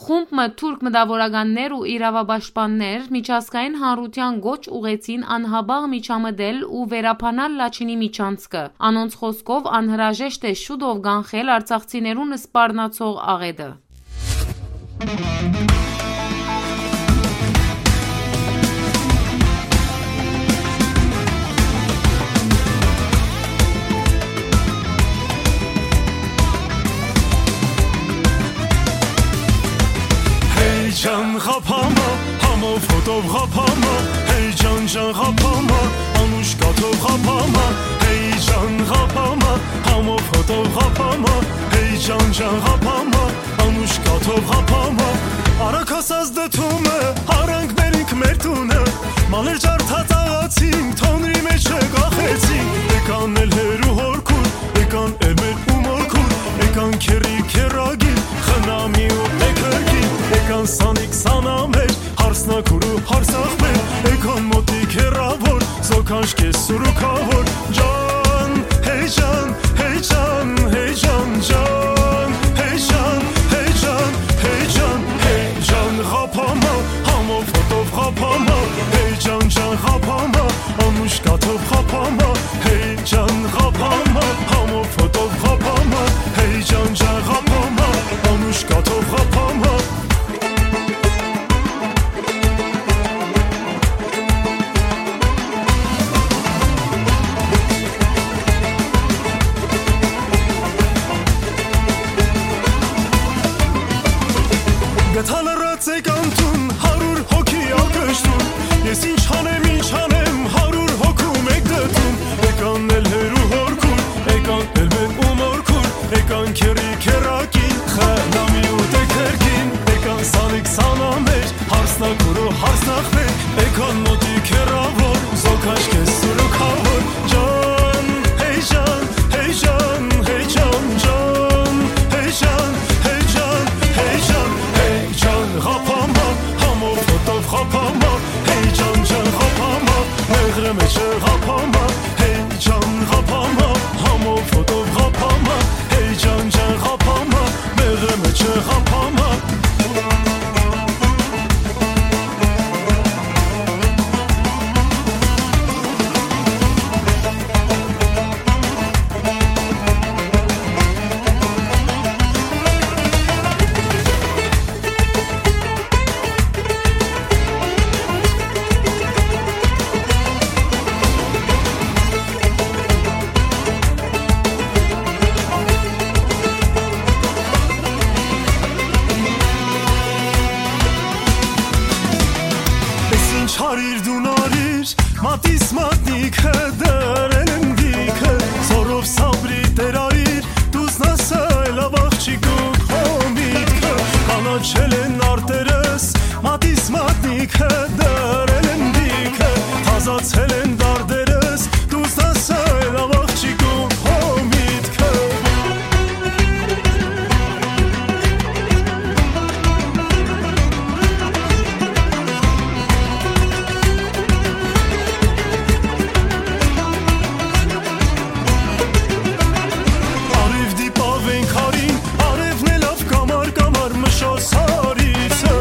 Խումբ մը թուրք մտաւորականներ ու իրաւապաշտպաններ միջազգային հանրութեան կոչ ուղղեցին անհապաղ միջամտել ու վերաբանալ Լաչինի միջանցքը։ Անոնց խօսքով անհրաժեշտ է շուտով կանխել արցախցիներուն սպառնացող աղէտը։ Հեյ ջան ղափամա, համով հոտով ղափամա, հեյ ջան ջան ղափամա, անուշ կաթով ղափամա, հեյ ջան ղափամա, համով հոտով ղափամա, հեյ ջան ջան ղափամա, անուշ կաթով ղափամա։ Արագ հասած դդումը, արանք մերինք մեր տունը, մալեր ջարդած աղացին, թոնրի մեջ կախեցին, եկան էլ հերու հորքուր, եկան էլ մեր ու մորքուր, եկան քերրի քերագին, խնամի ու էքերգին, եկան սանիկ սանամեր, հարսնակուր ու հարսախմեր, եկան մոտիկ հեռաւոր, զոքանչ կես սուրուքաւոր, ջան, հեյ ջան, հեյ ջան, հեյ ջան, ջան, հեյ ջան, հեյ ջան, հեյ ջան, հեյ ջան, ղափամա, համով հոտով ղափամա, հեյ ջան, ջան, ղափամա, անուշ կաթով ղափամա, հեյ ջան, ղափամա, համով հոտով ղափամա, հեյ ջան, ջան, ղափամա, անուշ կաթով ղափամա։ Գթա լռած եք անթուն, հարյուր հոգի ակշտուն, ես ինչ անեմ, ինչ անեմ, հարյուր հոգու մեկ դդում, եկան էլ հերու հորքուն, եկան էլ մեր ու մորքուն, եկան քերրի քերակին, խնամի ու տեքերքին, եկան սանիկ սանամեր, հարսնակուր ու հարսնախմեր, եկան մոտիկ հեռաւոր, զոքաչ կես սուրուքաւոր, ջան, հեյ ջան, հեյ ջան, հեյ ջան, ջան, հեյ ջան, հեյ ջան, հեյ ջան, հեյ ջան, ղափամա, համով հոտով ղափամա, հեյ ջան, ջան, ղափամա, մեղրը մեջը ղափամա, հեյ ջան, ղափամա, համով հոտով ղափամա, հեյ ջան, ջան, ղափամա, մեղրը մեջը ղափամա։ Էս ինչ հարիր դուն արիր, մատիս մատնիքը դրել եմ դիքը, զորով սաբրի տեր արիր, դուզնաս այլ աղջիկ ու քո միտքը, կանաչել են արտերս, մատիս մատնիքը դրել են դիքը, թազացել են դարդերս, դուզնաս այլ աղջիկ ու քո միտքը։ Արիւ դիպաւ ենք հարին, արեւն է լաւ կամար, կամար մշոս հարիցը,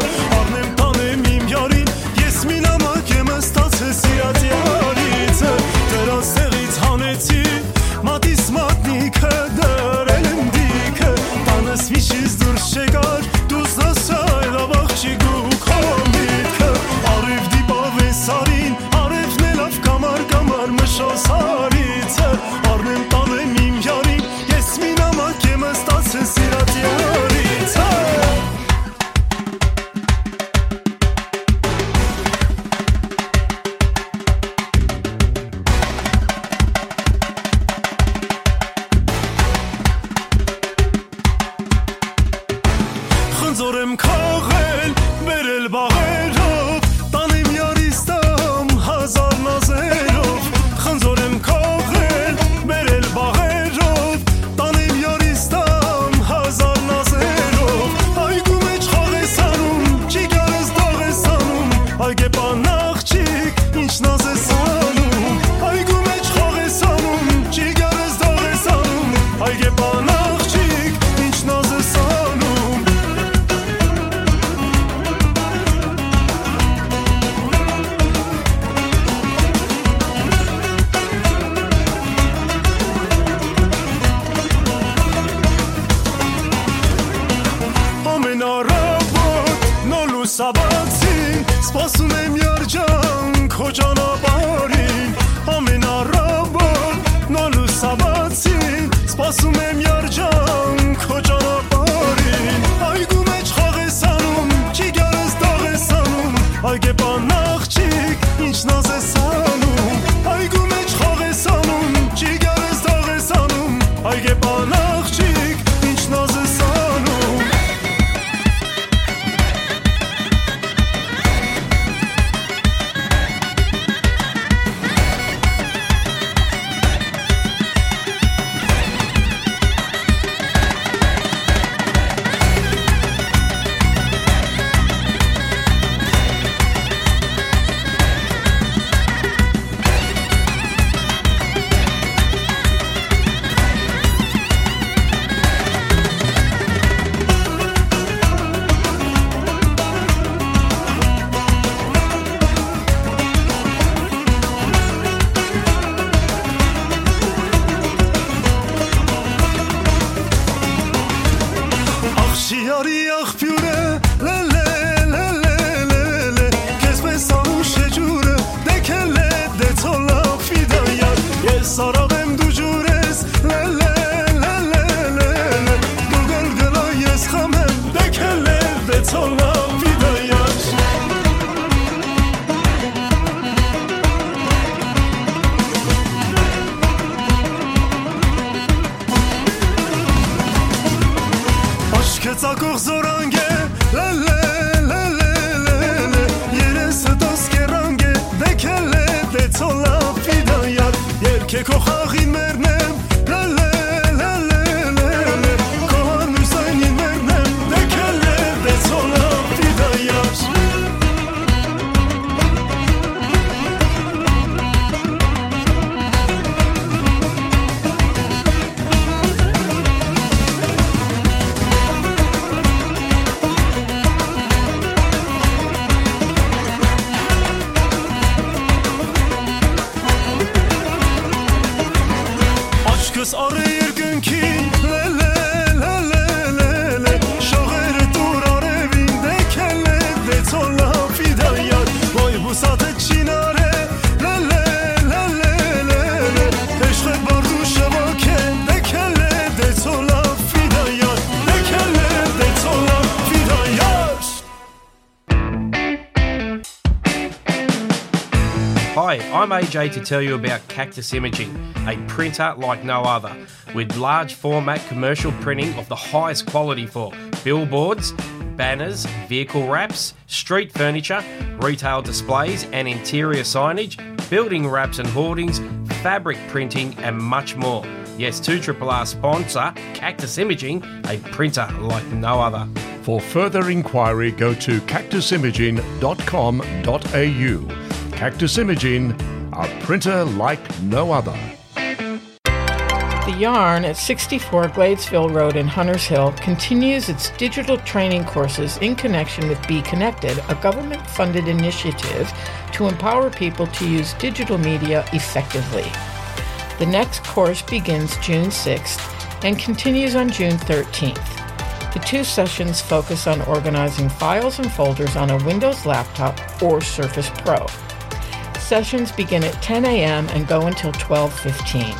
Կողզորանգե, լելե, լելե, լելե, երեսը տոս կերանգե, դեքելե, դե ցոլա, ֆիդայար, երկե քո խաղին մերնեմ, լելե, լելե, լելե, քո հարմուսանին մերնեմ, դեքելե, դե ցոլա, ֆիդայար։ Աչքս առ երկնքին, լելե, լելե, լելե, շողերը տուր արևին, դեքելե, դե ցոլա, ֆիդայար, ոյ բուսատը չինարե, լելե, լելե, լելե, էշղե բարդու շվոքե, դեքելե, դե ցոլա, ֆիդայար, դեքելե, դե ցոլա, ֆիդայար։ Hi, I'm A J to tell you about Cactus Imaging, a printer like no other, with large format commercial printing of the highest quality for billboards, banners, vehicle wraps, street furniture, retail displays and interior signage, building wraps and hoardings, fabric printing, and much more. Yes, two triple R sponsor Cactus Imaging, a printer like no other. For further inquiry, go to cactus imaging dot com dot a u. Cactus Imaging, a printer like no other. The Yarn at sixty-four Gladesville Road in Hunters Hill continues its digital training courses in connection with Be Connected, a government funded initiative to empower people to use digital media effectively. The next course begins June sixth and continues on June thirteenth. The two sessions focus on organizing files and folders on a Windows laptop or Surface Pro. Sessions begin at ten a m and go until twelve fifteen.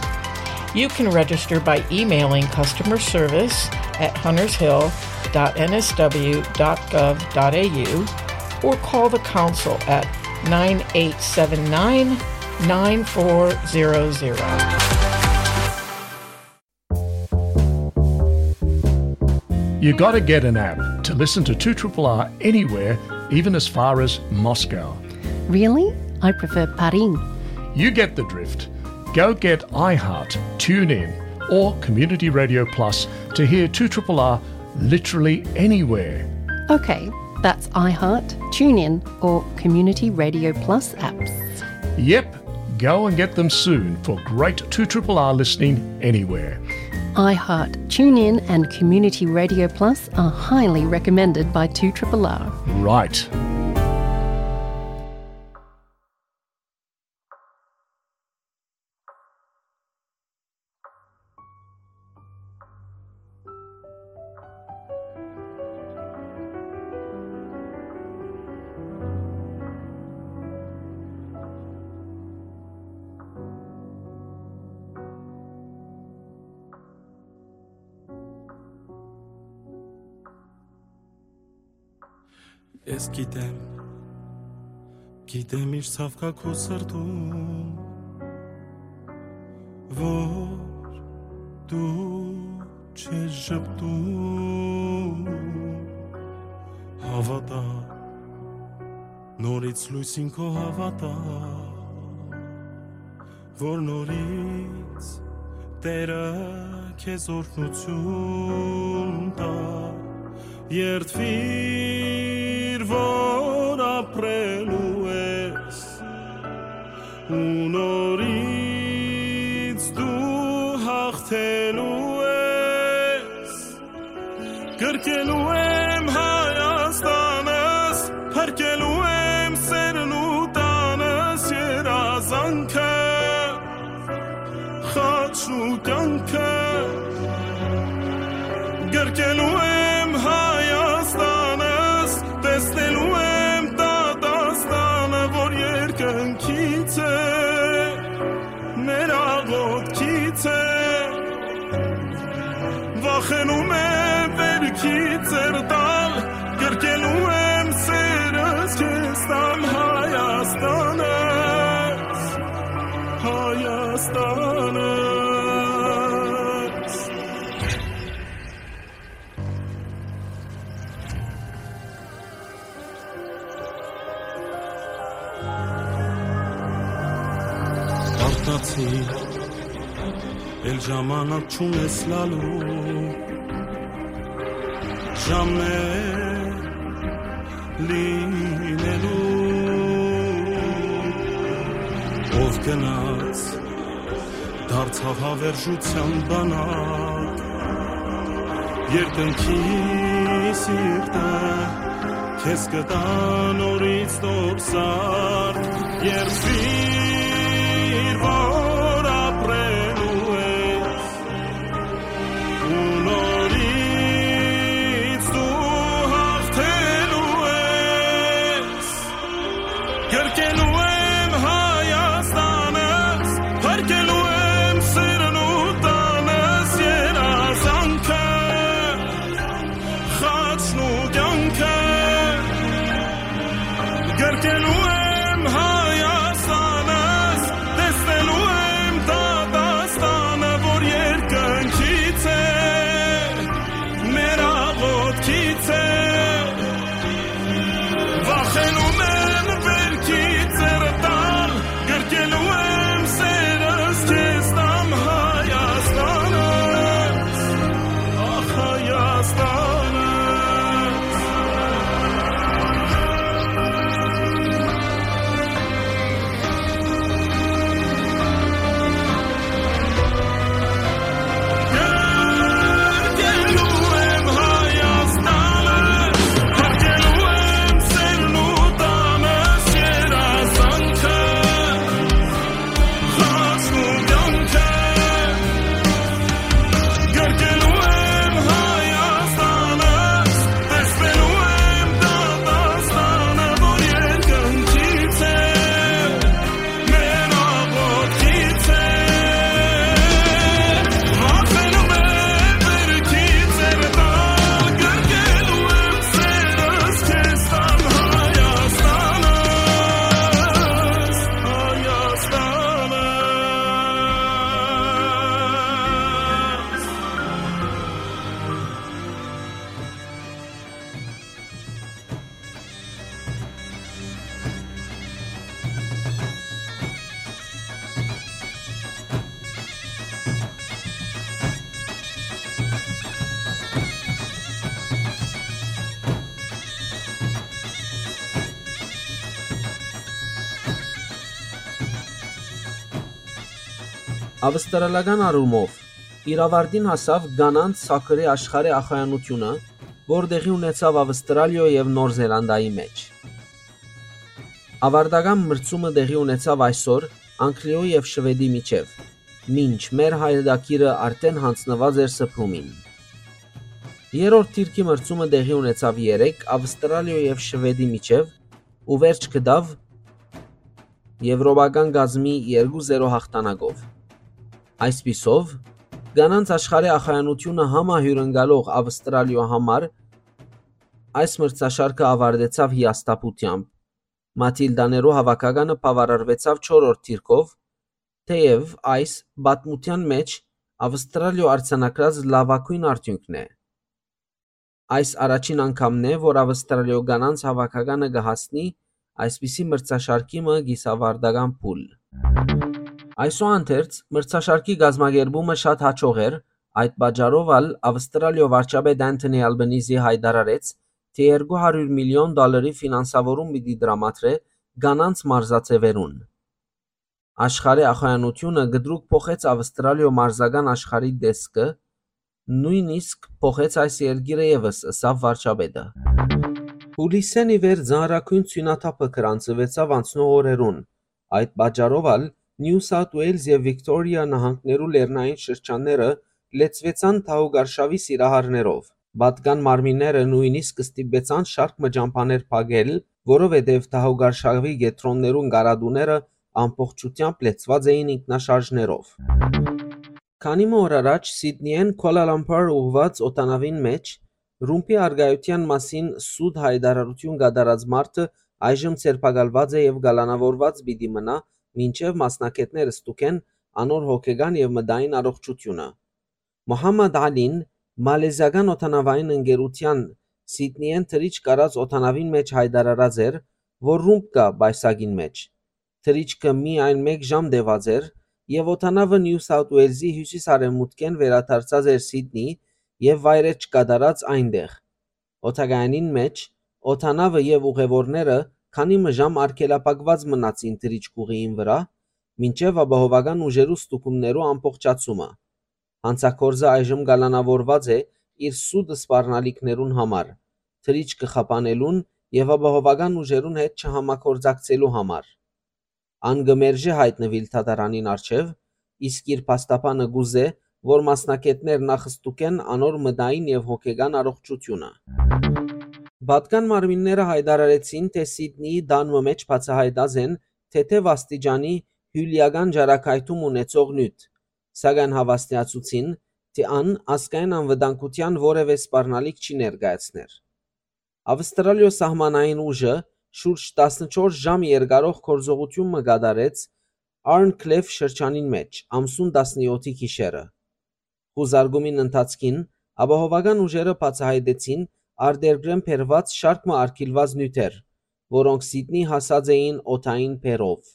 You can register by emailing customer service at huntershill dot n s w dot gov dot a u or call the council at nine eight seven nine, nine four zero zero. You gotta get an app to listen to two triple R anywhere, even as far as Moscow. Really? I prefer Paris. You get the drift. Go get iHeart, TuneIn, or Community Radio Plus to hear two triple R literally anywhere. Okay, that's iHeart, TuneIn, or Community Radio Plus apps. Yep, go and get them soon for great two triple R listening anywhere. iHeart, TuneIn, and Community Radio Plus are highly recommended by two triple R. Right. Ես գիտեմ, գիտեմ ինչ ցաւ կայ քու սրտում, որ դու չես ժպտում։ Հավատա, նորից լույսին քո հավատա, որ նորից Տերը քեզ օրհնություն տայ, երդվիր, որ ապրելու ես, ու նորից դու հաղթելու ես։ Գրկելու եմ Հայաստանս, փրկելու եմ սերն ու տանս, երազանքը, խաչն ու կյանքը։ Գրկելու եմ Հայաստանս, տեսնելու եմ դատաստանը, որ երկնքից է, մեր աղոթքից է։ Վախենում եմ վերքից ձեռ տալ, գրկելու եմ սերս քեզ տամ Հայաստանս, Հայաստանս։ Գնացի, էլ ժամանակ չունես լալու, ժամեր լինելու։ Ով գնաց, դարձաւ հավերժութեան բանակ, երկնքի սիրտը քեզ կտա նորից նոր սարք, երբ իր որ ապրելու ես, ու նորից դու հաղթելու ես։ Գրկելու եմ Հայաստանս, փրկելու եմ սիրն ու տանս, երազանքը, խաչն ու կյանքը։ Գրկելու եմ Հայաստանս, տեսնելու եմ դատաստանը, որ երկնքից է, մեր աղոթքից է։ Վախենում եմ վեր քիթ ձեռը տալ, գրկելու եմ սերս քեզ տամ, Հայաստանս, ախ, Հայաստանս։ Գրկելու եմ Հայաստանը, փրկելու եմ սերն ու տանս, երազանքը, խաչն ու կյանքը։ Գրկելու եմ Հայաստանը, տեսնելու եմ դատաստանը, որ երկնքից է, մեր աղոթքից է։ Վախենում եմ վեր քիթ ձեռը տալ, գրկելու եմ սերս քեզ տամ, Հայաստանս, Հայաստանս։ Ավստրալական առումով իր աւարտին հասաւ կանանց սաքըրի աշխարհի ախոյանութիւնը, որ տեղի ունեցաւ Ավստրալիոյ եւ Նոր Զելանդայի մէջ։ Աւարտական մրցումը տեղի ունեցաւ այսօր Անգլիոյ եւ Շուէդի միջեւ, մինչ մեր հայրենակիրը արդէն յանձնուած էր Սփրումին։ Երրորդ դիրքի մրցումը տեղի ունեցաւ երեկ Ավստրալիոյ եւ Շուէդի միջեւ ու վերջ գտաւ եւրոպական կազմի երկու զերո հաղթանակով։ Այսպիսով, կանանց աշխարհի ախոյանութիւնը համահիւրընկալող Ավստրալիոյ համար այս մրցաշարքը աւարտեցաւ հիասթափութեամբ։ Մաթիլդաներու հաւաքականը բաւարարուեցաւ չորրորդ դիրքով, թէեւ այս պատմութեան մէջ Ավստրալիոյ արձանագրած լաւագոյն արդիւնքն է։ Այս առաջին անգամն է, որ Ավստրալիոյ կանանց հաւաքականը կը հասնի այսպիսի մրցաշարքի մը կիսաւարտական փուլ։ Այսուհանդերձ, մրցաշարքի կազմակերպումը շատ յաջող էր, այդ պատճառով ալ Ավստրալիոյ վարչապետ Անթոնի Ալբանիզի յայտարարեց, թէ երկու հարիւր միլիոն դոլարի ֆինանսավորում պիտի տրամադրէ կանանց մարզաձեւերուն։ Աշխարհի ախոյանութիւնը կտրուկ փոխեց Ավստրալիոյ մարզական աշխարհի տեսքը, նոյնիսկ փոխեց այս երկիրը եւս, ըսաւ վարչապետը։ Հուլիսէն ի վեր ծանրագոյն ցոյնաթափը գրանցուեցաւ անցնող օրերուն։ Այդ պատճառով ալ Նիու Սաութ Ուէյլզ եւ Վիկտորիա նահանգներու լեռնային շրջանները լեցուեցան թահուկարշաւի սիրահարներով։ Պատկան մարմինները նոյնիսկ ստիպեցան շարք մը ճամբաներ փակել, որովհետեւ թահուկարշաւի կեդրոններուն կարատուները ամբողջութեամբ լեցուած էին ինքնաշարժներով։ Քանի մը օր առաջ Սիդնիէն Քուալալամպուր ուղղուած օդանաւին մէջ ռումբի առկայութեան մասին սուտ յայտարարութիւն կատարած մարդը այժմ ձերբակալուած է եւ կալանաւորուած պիտի մնայ, մինչեւ մասնագէտները ստուգեն անոր հոգեկան եւ մտային առողջութիւնը։ Մոհամմադ Ալին, մալեզիական օդանավային ընկերութեան Սիդնիէն թռիչք առած օդանաւին մէջ յայտարարած էր, որ ռումբ կայ պայուսակին մէջ։ Թռիչքը միայն մէկ ժամ տեւած էր, եւ օդանաւը Նիու Սաութ Ուելզի հիւսիս-արեւմուտքէն վերադարձած էր Սիդնի եւ վայրէջք կատարած այնտեղ։ Օդակայանին մէջ օդանաւը եւ ուղեւորները քանի մը ժամ արգելափակուած մնացին թռիչք ուղիին վրայ, մինչեւ ապահովական ուժերու ստուգումներու ամբողջացումը։ Հանցագործը այժմ կալանաւորուած է իր սուտ սպառնալիքներուն համար, թռիչքը խափանելուն եւ ապահովական ուժերուն հետ չհամագործակցելու համար։ Ան կը մերժէ յայտնուիլ դատարանին առջեւ, իսկ իր փաստաբանը կ'ուզէ, որ մասնագէտներ նախ ստուգեն անոր մտային եւ հոգեկան առողջութիւնը։ Պատկան մարմինները յայտարարեցին, թէ Սիդնիի տան մը մէջ բացայայտած են թեթեւ աստիճանի հիւլիական ճառագայթում ունեցող նիւթ, սակայն հաւաստիացուցին, թէ ան ազգային անվտանգութեան որեւէ սպառնալիք չի ներկայացներ։ Ավստրալիոյ սահմանային ուժը շուրջ տասնչորս ժամ երկարող գործողութիւն մը կատարեց Արնքլեֆ շրջանին մէջ ամսուն տասնեօթի գիշերը։ Խուզարկումին ընթացքին ապահովական ուժերը բացայայտեցին արտերկրէն բերուած շարք մը արգիլուած նիւթեր, որոնք Սիդնի հասած էին օդային բեռով։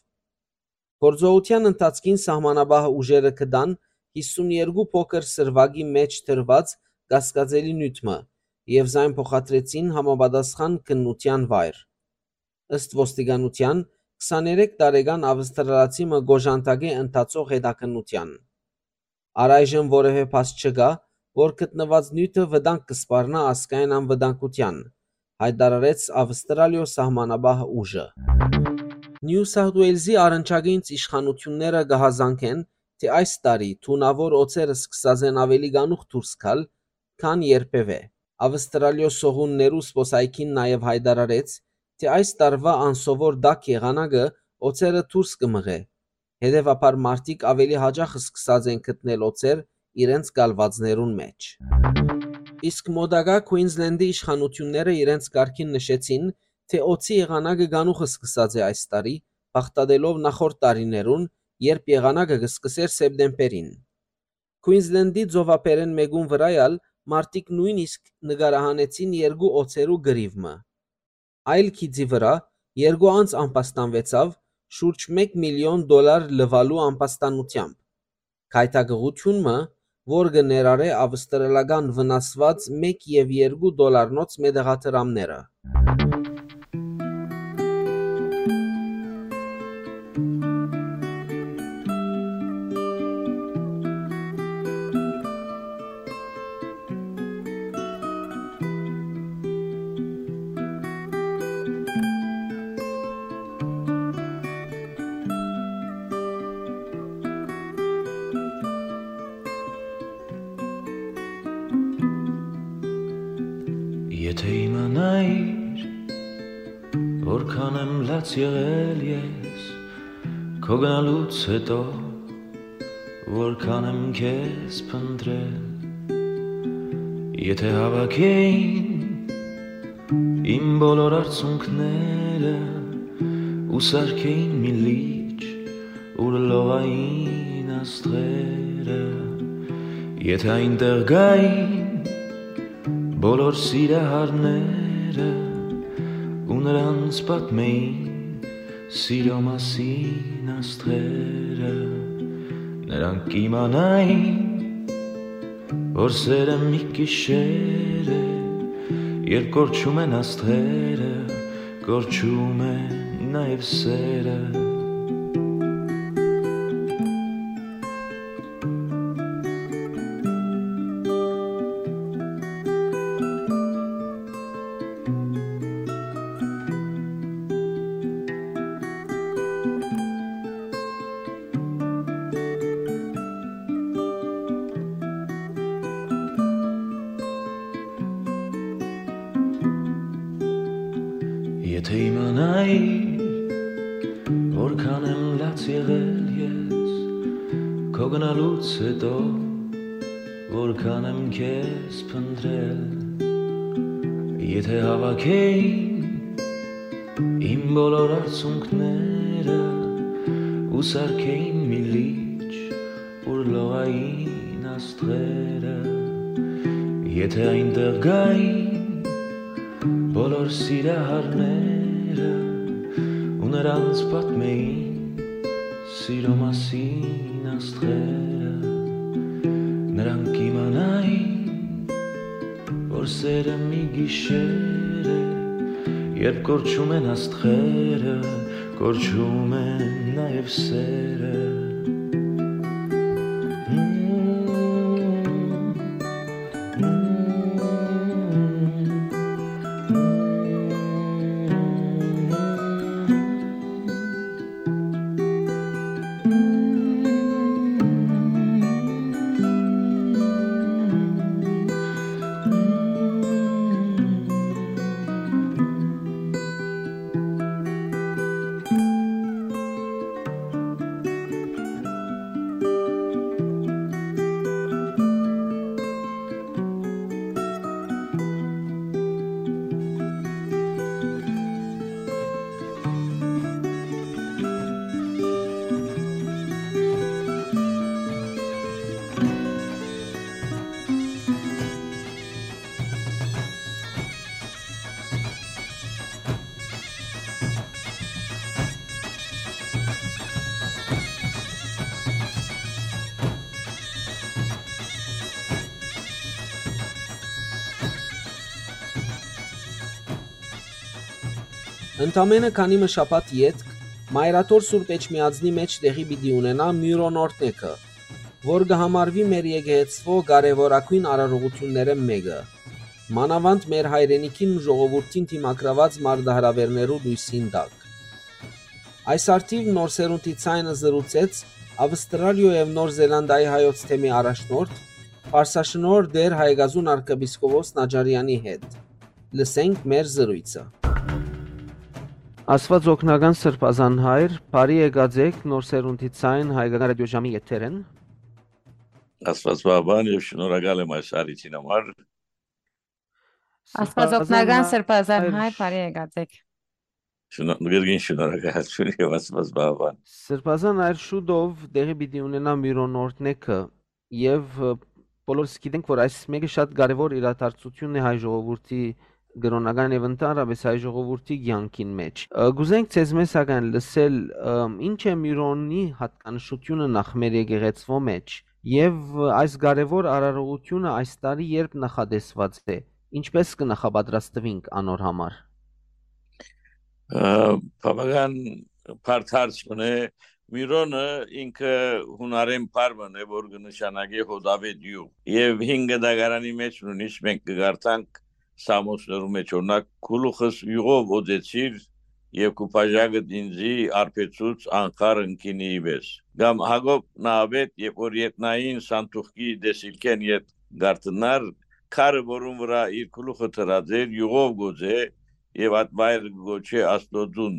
Գործողութեան ընթացքին սահմանապահ ուժերը գտան հիսուն երկու փոքր սրուակի մէջ դրուած կասկածելի նիւթ մը եւ զայն փոխադրեցին համապատասխան քննութեան վայր։ Ըստ ոստիկանութեան, քսաներեք տարեկան ավստրալացի մը կ'օժանդակէ ընթացող հետաքննութեան։ Առայժմ որեւէ փաստ չկայ, որ գտնուած նիւթը վտանգ կը սպառնայ ազգային անվտանգութեան, յայտարարեց Ավստրալիոյ սահմանապահ ուժը։ Նիու Սաութ Ուելզի առնչակից իշխանութիւնները կը հազանգեն, թէ այս տարի թունաւոր օձերը սկսած են աւելի կանուխ դուրս գալ, քան երբեւէ։ Ավստրալիոյ սողուններու սպոսայքին նաեւ յայտարարեց, թէ այս տարուայ անսովոր տաք եղանակը օձերը դուրս կը մղէ, հետեւաբար մարդիկ աւելի յաճախ սկսած են գտնել օձեր իրենց կալուածներուն մէջ։ Իսկ մօտակայ Քուինզլենդի իշխանութիւնները իրենց կարգին նշեցին, թէ օձի եղանակը կանուխ սկսած է այս տարի, բաղդատելով նախորդ տարիներուն, երբ եղանակը կը սկսէր սեպտեմբերին։ Քուինզլենդի ծովափերէն մէկուն վրայ ալ մարդիկ նոյնիսկ նկարահանեցին երկու օձերու կռիւ մը։ Այլ գիծի վրայ երկու անձ ամբաստանուեցաւ շուրջ մէկ միլիոն դոլար լուալու ամբաստանութեամբ։ Գայթակղութիւն մը, որ կը ներառէ ավստրալական վնասուած մէկ եւ երկու դոլարնոց մետաղադրամները։ Եթէ իմանայիր, որքան եմ լաց եղել ես, քո գնալուց հետո, որքան եմ քեզ փնտրել, եթէ հավաքեին իմ բոլոր արցունքները ու սարքեին մի լիճ, ուր լողային աստղերը, եթէ այնտեղ գային բոլոր սիրահարները ու նրանց պատմեին սիրո մասին աստղերը, նրանք կիմանային, որ սերը մի գիշեր է, երբ կորչում են աստղերը, կորչում է նաև սերը։ Եթէ իմանայիր, որքան եմ լաց եղել ես, քո գնալուց հետո, որքան եմ քեզ փնտրել, եթէ հավաքեին իմ բոլոր արցունքները ու սարքեին մի լիճ, ուր լողային աստղերը, եթէ այնտեղ գային բոլոր սիրահարները ու նրանց պատմեին Սիրո մասին աստղերը, նրանք իմանային, որ սերը մի գիշեր է, երբ կորչում են աստղերը, կորչում են նաև սերը։ Ընդամէնը քանի մը շաբաթ ետք Մայրաթոր Սուրբ Էջմիածնի մէջ տեղի պիտի ունենայ Միւրոն օրհնեքը, որ կը համարուի մեր եկեղեցւոյ կարեւորագոյն արարողութիւններէն մէկը, մանաւանդ մեր հայրենիքին ու ժողովուրդին դիմագրաւած մարտահրաւէրներու լոյսին տակ։ Այս առթիւ Նոր Սերունդի Ձայնը զրուցեց Ավստրալիոյ եւ Նոր Զելանդիայի հայոց թեմի առաջնորդ, Պարսաշնորհ Տէր Հայկազուն արքեպիսկոպոս Նաջարեանի հետ։ Լսենք մեր զրոյցը։ Աստուած օգնական Սրբազան Հայր, բարի եկած էք Նոր Սերունդի Ձայն հայկական ռադիոժամի եթերէն։ Աստուած պահպան եւ շնորհակալ եմ այս առիթին համար։ Աստուած օգնական Սրբազան Հայր, բարի եկած էք։ Շնորհ-, գերգին շնորհակալություն եւ Աստուած պահպան։ Սրբազան Հայր, շուտով տեղի պիտի ունենայ Միւրոն օրհնեքը եւ, ը, բոլորս գիտենք, որ այս մէկը շատ կարեւոր իրադարձութիւն է հայ ժողովուրդի կրօնական եւ ընդհանրապէս հայ ժողովուրդի կեանքին մէջ։ Ը, կ'ուզենք ձեզմէ սակայն լսել, ը, ի՞նչ է Միւրոնի յատկանշութիւնը նախ մեր եկեղեցւոյ մէջ եւ, ը, այս կարեւոր արարողութիւնը այս տարի երբ նախատեսուած է, ինչպէս կը նախապատրաստուինք անոր համար։ Ը, բավական բարդ հարց մըն է։ Միւրոնը ինքը յունարէն բառ մըն է, որ կը նշանակէ հոտաւէտ իւղ։ Եւ Հին Գնդակարանի մէջ նույնիսկ մենք կը կարդանք Սաղմոսներու մէջ, օրինակ, «Քու գլուխս իւղով օծեցիր եւ քու բաժակդ ինծի արբեցուց անխառն գինիի պէս»։ Կամ Յակոբ նահապետ, երբ որ ետնային սանդուղքի տեսիլքէն յետ կ'արթնար, քարը, որուն վրայ իր գլուխը դրած էր, իւղով կ'օծէ եւ այդ վայրը կը կոչէ Աստուծոյ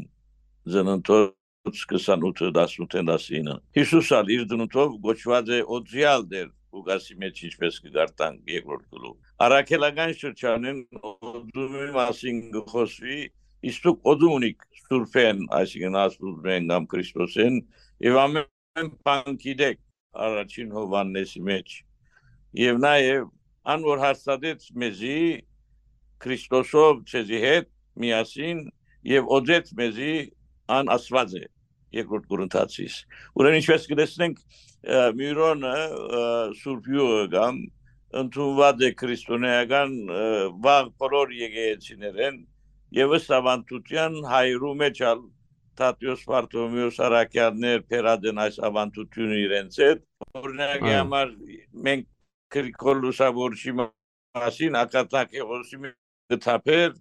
Ծննդոց քսանութը, տասնութ, տասինը։ Յիսուս ալ իր ծնունդով կոչուած է օծեալ Տէր Ղուկասի մէջ, ինչպէս կը կարդանք երկրորդ գլուխ։ Առաքելական շրջանին օծումի մասին կը խօսուի, իսկ դուք օծում ունիք Սուրբէն, այսինքն Աստուծմէն կամ Քրիստոսէն, եւ ամէն բան գիտէք առաջին Յովհաննէսի մէջ։ Եւ նաեւ ան որ հաստատեց մեզի Քրիստոսով ձեզի հետ միասին եւ օծեց մեզի, ան Աստուած է, երկրորդ Կորինթացիս։ Ուրեմն ինչպես կը տեսնենք, ը, Միւրոնը, ը, Սուրբ Իւղը կամ ընդունուած է քրիստոնեական, ը, վաղ բոլոր եկեղեցիներէն եւ ըստ աւանդութեան հայերու մէջ ալ Թադէոս, Բարթոլոմէոս, առաքեալներ բերած են այս աւանդութիւնը իրենց հետ։ Օրինակի Այո։ համար մենք Գրիգոր Լուսավորչի մասին, Ակաթանքեղոսի մէջ կը թափէր,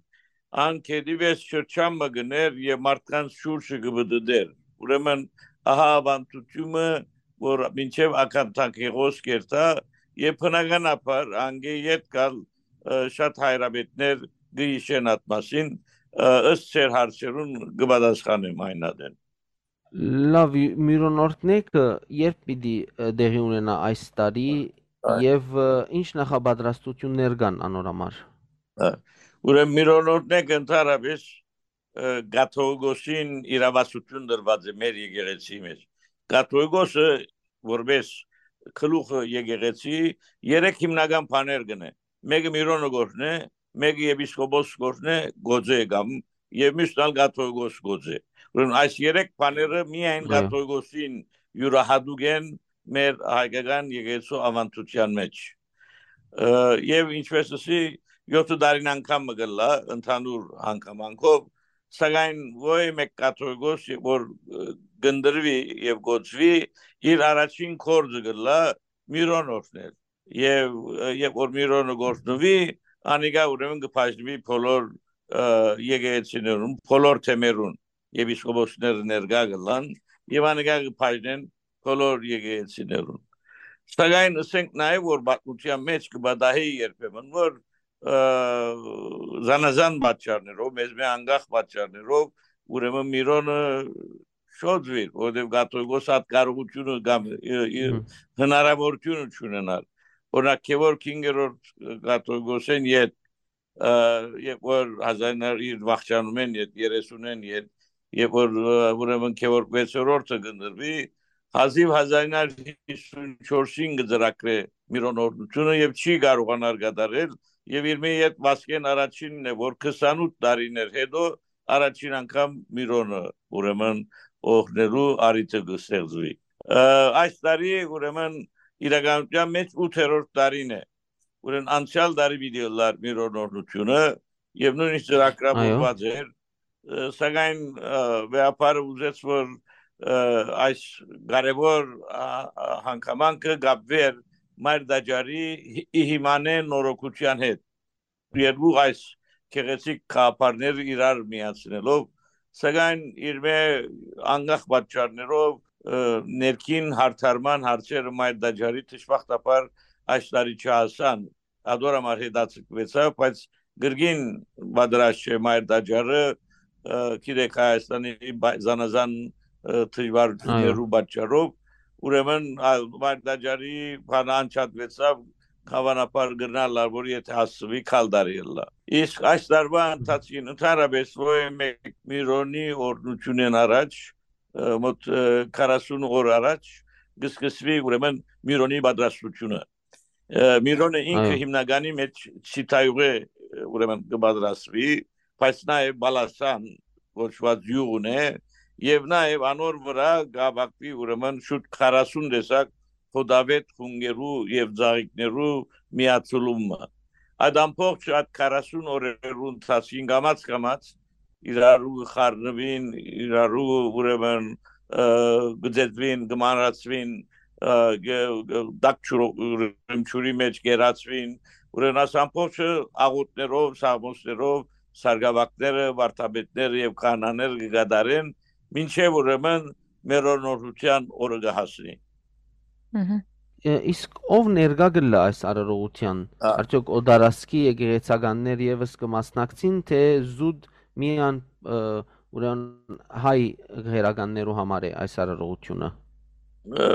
ան գետի վեր շրջան մը գներ եւ մարդկանց շուրջը կը պտտէր։ Ուրեմն ահա աւանդութիւնը, որ մինչեւ Ակաթանքեղոս կերթայ, եւ բնականաբար անգէ յետ կալ, ը, շատ հայրապետներ կը յիշեն այդ մասին, ը, ըստ ձեր հարցերուն կը պատասխանեմ այն ատեն։ Լավ, ի-, Միւրոն օրհնեքը երբ պիտի, ը, տեղի ունենայ այս տարի Այ։ եւ, ը, ինչ նախապատրաստութիւններ կան անոր համար։ Ա, ուրեմն Միւրոն օրհնեքը ընդհանրապէս, ը, կաթողիկոսին իրաւասութիւն տրուած է մեր եկեղեցի մէջ։ Կաթողիկոսը որպէս գլուխը եկեղեցի երեք հիմնական բաներ կ'ընէ։ Մէկը Միւրոնը կ'օրհնէ, մէկը եպիսկոպոս կ'օրհնէ, կ'օծէ կամ, եւ մյուսն ալ կաթողիկոս կ'օծէ։ Ուրեմն այս երեք բաները միայն Այո։ կաթողիկոսին իւրահատուկ են մեր հայկական եկեղեցու աւանդութեան մէջ։ Ը, եւ ինչպես ըսի, յոթը տարին անգամ մը կ'ըլլայ ընդհանուր հանգամանքով, սակայն ոյ մէկ կաթողիկոս, որ, ը, կ'ընտրուի եւ կ'օծուի, իր առաջին գործը կ'ըլլայ միրոն օրհնել։ Եւ, ը, երբ որ միրոնը կ'օրհնուի, անիկա ուրեմն կը բաժնուի բոլոր, ը, եկեղեցիներուն, բոլոր թեմերուն, եպիսկոպոսները ներկայ կ'ըլլան, եւ անիկա կը բաժնեն բոլոր եկեղեցիներուն։ Սակայն ըսենք նաեւ, որ պատմութեան մէջ կը պատահի երբեմն, որ, ը, զանազան պատճառներով, մեզ մէ անկախ պատճառներով, ուրեմն միրոնը շոյ ըլլայ, որովհետեւ կաթողիկոս ատ կարողութիւնը կամ, ը, ը, Հմ։ հնարաւորութիւնը չունենար։ Օրինակ, Գեորգ հինգերորդ կաթողիկոսէն յետ, ը, երբ որ հազարներ իր վախճանումէն յետ, երեսունէն յետ, երբ որ, ը, ուրեմն Գեորգ վեցերորդը կ'ընտրուի, հազիւ հազարներ հիսուն չորսին կը ծրագրէ միրոն օրհնութիւնը եւ չի կարողանար կատարել, եւ իր մէ յետ Վասկէն առաջինն է, որ քսանութ տարիներ հետո առաջին անգամ միրոնը, ուրեմն, օրհնելու առիթը կը ստեղծուի։ Ը, այս տարի, ուրեմն, իրականութեան մէջ ութերորդ տարին է, ուրեմն անցեալ տարի պիտի ըլլար միրոն օրհնութիւնը, եւ նոյնիսկ ծրագրավորուած Այո։ էր, ը, սակայն, ը, վեհափառը ուզեց, որ, ը, այս կարեւոր, ա, ա, հանգամանքը կապուի Մայր Տաճարի հի-, ի հիմանէ նորոգութեան հետ։ Երկու այս գեղեցիկ գաղափարները իրար միացնելով, սակայն իր մէ անկախ պատճառներով, ը, ներքին հարդարման հարցերը Մայր Տաճարի դժբախտաբար այս տարի չհասան, ատոր համար հետաձգուեցաւ, բայց կրկին պատրաստ չէ Մայր Տաճարը, ը, գիտեք, Հայաստանի բա-, զանազան, ը, դժվարություններու Այո։ պատճառով, ուրեմն, այլ Մայր Տաճարի բանը անջատուեցաւ, հաւանաբար կրնար լալ, որ եթե հասցուի, քալ տարի ըլլայ։ Իսկ այս տարուայ Մհմ։ ընթացքին ընդհանրապես ոյ մէկ միրոնի օրհնութիւնէն առաջ, ը, մոտ, ը, քառասուն օր առաջ կը սկսուի, ուրեմն, միրոնի պատրաստությունը։ Ը, միրոնը ինքը Այո։ հիմնականի մէջ Չիթայուղէ, ը, ուրեմն, կը պատրաստուի, բայց նաեւ Բալասան կոչուած յուղ ունի, եւ նաեւ անոր վրայ կ'ապակուի, ուրեմն, շուտ քառասուն տեսակ հոդավետ խունկերու եւ ծաղիկներու միաձուլումը։ Այդ ամբողջ այդ քառասուն օրերու ընթացքին կամաց-կամաց իրարու կը խառնուին, իրարու, ուրեմն, ը, կը ձեզուին, կը մանրացուին, ը, կը, կը, տաք ջուրը, ուրեմն, ջուրի մէջ կ'երացուին, ուրեմն, այս ամբողջը աղօթքներով, սաղմոսներով, սարկաւակները, վարդապետները եւ քահանաները կը կատարեն, մինչեւ, ուրեմն, մեր օրհնութեան օրը կը հասնի։ Մհմ։ Ը, իսկ ով ներկայ կ'ըլլայ այս արարողութեան։ Ա։ Արդեօք օտարազգի եկեղեցականներ եւս կը մասնակցին, թէ զուտ միայն, ը, ուրեմն հայ գղերականներու համար է այս արարողութիւնը։ Ը,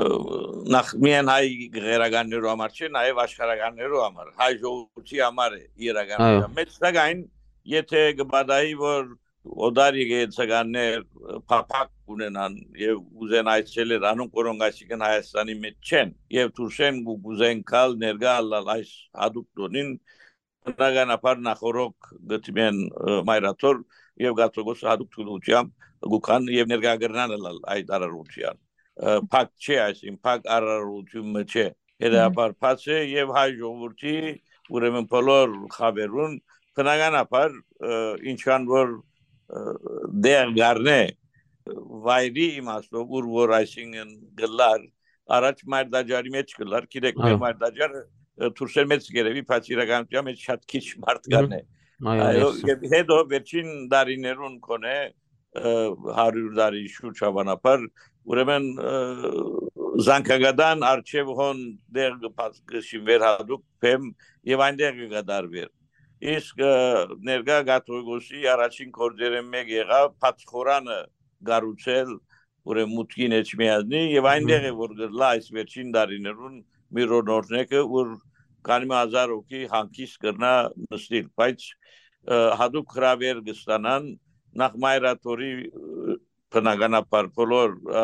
նախ միայն հայ գղերականներու համար չէ, նաեւ աշխարհականներու համար, հայ ժողովրդի համար է իրականության Այո։ մեջ, սակայն եթե կը պատահի, որ օտար եկեղեցականներ, ը, փափաք ունենան եւ ուզեն այցելել անոնք, որոնք այսինքն Հայաստանի մեջ չեն, եւ դուրսէն կու-, կուզեն գալ ներկայ ըլլալ այս յատուկ տօնին, բնականաբար նախօրոք կը դիմեն, ը, Մայր Աթոռ եւ կաթողիկոսը յատուկ թուլութեամբ կու գան եւ ներկայ կրնան ըլլալ այդ արարողութեան։ Ը, փակ չէ, այսինքն փակ արարողութիւն մը չէ, հետեւաբար բաց է եւ հայ ժողովրդի, ուրեմն, բոլոր խաւերուն, բնականաբար, ը, ինչքան որ, ը, դեղ կ'առնէ, ը, վայրի իմաստով, ուր որ, այսինքն, կ'ըլլար, առաջ Մայր Տաճարի մէջ կ'ըլլար, գիտեք, մեր Այո։ Մայր Տաճարը, ը, դուրսէն մեծ կ'երեւի, բայց իրականության մէջ շատ քիչ մարդ Մհմ։ կ'առնէ։ Այո, Այո, այո, եւ սա։ Հետո վերջին տարիներուն կոնե, ը, հարիւր տարի շուրջ հաւանաբար, ուրեմն, ը, զանգակատան առջեւ հոն դեղ կը բաց-, կը շինուէր յատուկ բեմ եւ այնտեղ կը կատարուէր։ Իսկ, ը, ներկայ կաթողիկոսի առաջին գործերէն մէկ եղաւ բաց խորանը կառուցել, ուրեմն մուտքին էջ միածնի եւ այնտեղ Մհմ։ է, որ կ'ըլլայ այս վերջին տարիներուն միրոն օրհնեքը, ուր քանի մը հազար հոգի հանգիստ կրնայ նստիլ, բայց, ը, յատուկ հրաւեր կը ստանան նախ Մայր Աթոռի, ը, բնականաբար բոլոր, ը,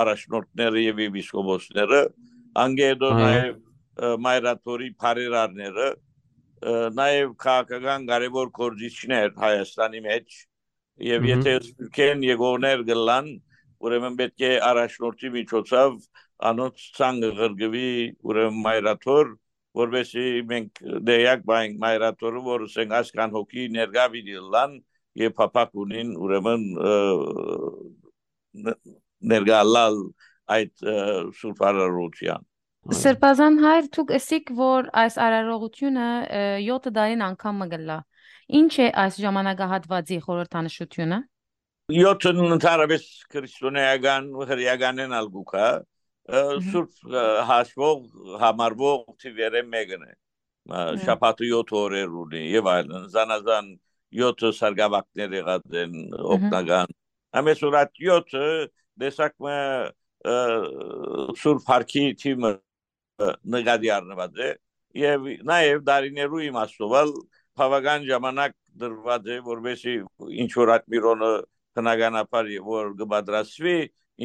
առաջնորդները եւ եպիսկոպոսները, անկէ հետո Այո։ նաեւ, ը, Մայր Աթոռի բարերարները, ը, նաեւ քաղաքական կարեւոր գործիչներ Հայաստանի մէջ, եւ Մհմ։ եթե Սփիւռքէն եկողներ կ'ըլլան, ուրեմն պէտք է առաջնորդի միջոցով անոնց ցանկը ղրկուի, ուրեմն մայրաթոր, որպեսզի մենք դեյակ պահենք մայրաթորը, որ ասենք այսքան հոգի ներկայ պիտի ըլլան եւ փափաք ունին, ուրեմն, ը, ն-, ներկայ ըլլալ այդ, ը, սուրբ արարողութեան։ Սրբազան հայր, դուք ըսիք, որ այս արարողութիւնը, ը, եօթը տարին անգամ մը կ'ըլլայ։ Ի՞նչ է այս ժամանակահատուածի խորհրդանշութիւնը։ Եօթն ընդհանրապէս քրիստոնէական, հրեականէն ալ կու գայ, ը, Մհմ։ սուրբ, ը, հաշուող, համարուող թիւերէ մէկն է։ Ը, Մհմ։ շաբաթը եօթ օրեր ունի եւ այլն, զանազան եօթը սարկաւակներ եղած են Մհմ։ օգնական։ Ամեն ուրախ եօթը տեսակ մը, ը, սուրբ հարկի թիւը նկատի առնուած է եւ նաեւ դարիներու իմաստով ալ բաւական ժամանակ դրուած է, որպեսզի ինչ որ այդ Միրոնը բնականաբար որ կը պատրաստուի,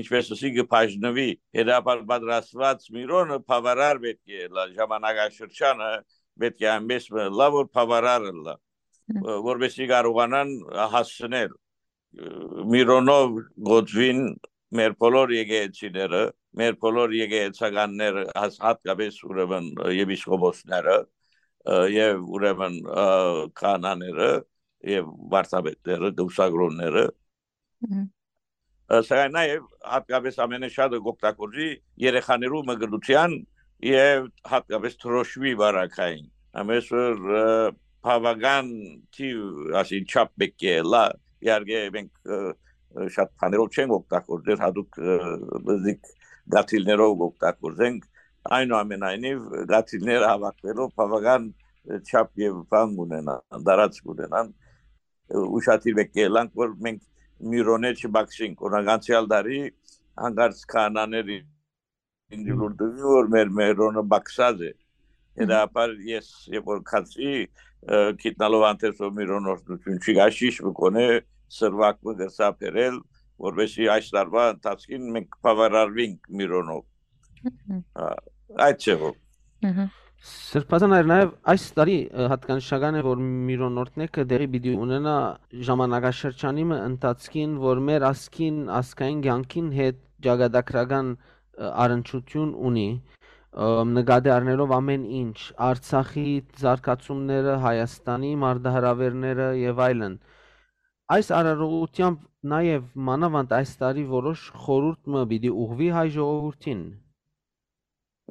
ինչպես ասի, կը բաժնուի, հետաբար պատրաստուած Միրոնը բավարար պէտք է ըլլայ, ժամանակաշրջանը պէտք է այնպես մը ըլլայ, որ բավարար ըլլայ, Հմ։ ը, որպեսզի կարողանան հասցնել, ը, Միրոնով գոդվին մեր բոլոր եկեղեցիները, մեր բոլոր եկեղեցականները, հաս-, հատկապես ուրեմն, ը, եպիսկոպոսները, ը, եւ ուրեմն, ը, քահանաները եւ վարդապետները, կուսակրոնները։ Մհմ։ Ը, սակայն նաեւ հատկապես ամենաշատը կօգտագործի երեխաներու մկրտութեան եւ հատկապես դրոշմի վարակային։ Ամենսուր, ը, բաւական թիւ, ասի, չափ պէտք է ըլլայ։ Իհարկե մենք, ը, ը, շատ բաներով չենք օգտագործեր, հատուկ, ը, բզիկ գաթիլներով օգտագործենք։ Այնուամենայնիվ, գաթիլները հավաքվելով բաւական, ը, չափ եւ բան կունենան, տարածք կունենան։ Ը, ուշադիր պէտք է ըլլանք, որ մենք Միրոնէ չբակսենք։ Օրինակ, անցեալ տարի հանկարծ քահանաներ ինձ Մհմ։ լուր տուին, որ մեր Միրոնը բակսած է։ Մհմ։ Հետաբար ես, երբ որ գացի, ը, գիտնալով հանդերձով Միրոնը օգնութիւն չի գայ, շիշ մը կոնե սրուակ մը կրցայ բերել, որպեսզի այս տարուայ ընթացքին մենք բաւարարուինք Միրոնով։ Մհմ։ Ա, այդ ձևով։ Մհմ։ Սրբազան հայր, նաեւ այս տարի, ը, յատկանշական է, որ Միրոնորտնեքը տեղի պիտի ունենայ ժամանակաշրջանի մը ընթացքին, որ մեր ազգին, ազգային կյանքին հետ ճակատագրական, ը, առնչութիւն ունի, ը, նկատի առնելով ամէն ինչ, Արցախի զարգացումները, Հայաստանի մարտահրաւերները եւ այլն։ Այս արարողութեամբ նաեւ մանաւանդ այս տարի որոշ խորհուրդ մը պիտի ուղղուի հայ ժողովուրդին։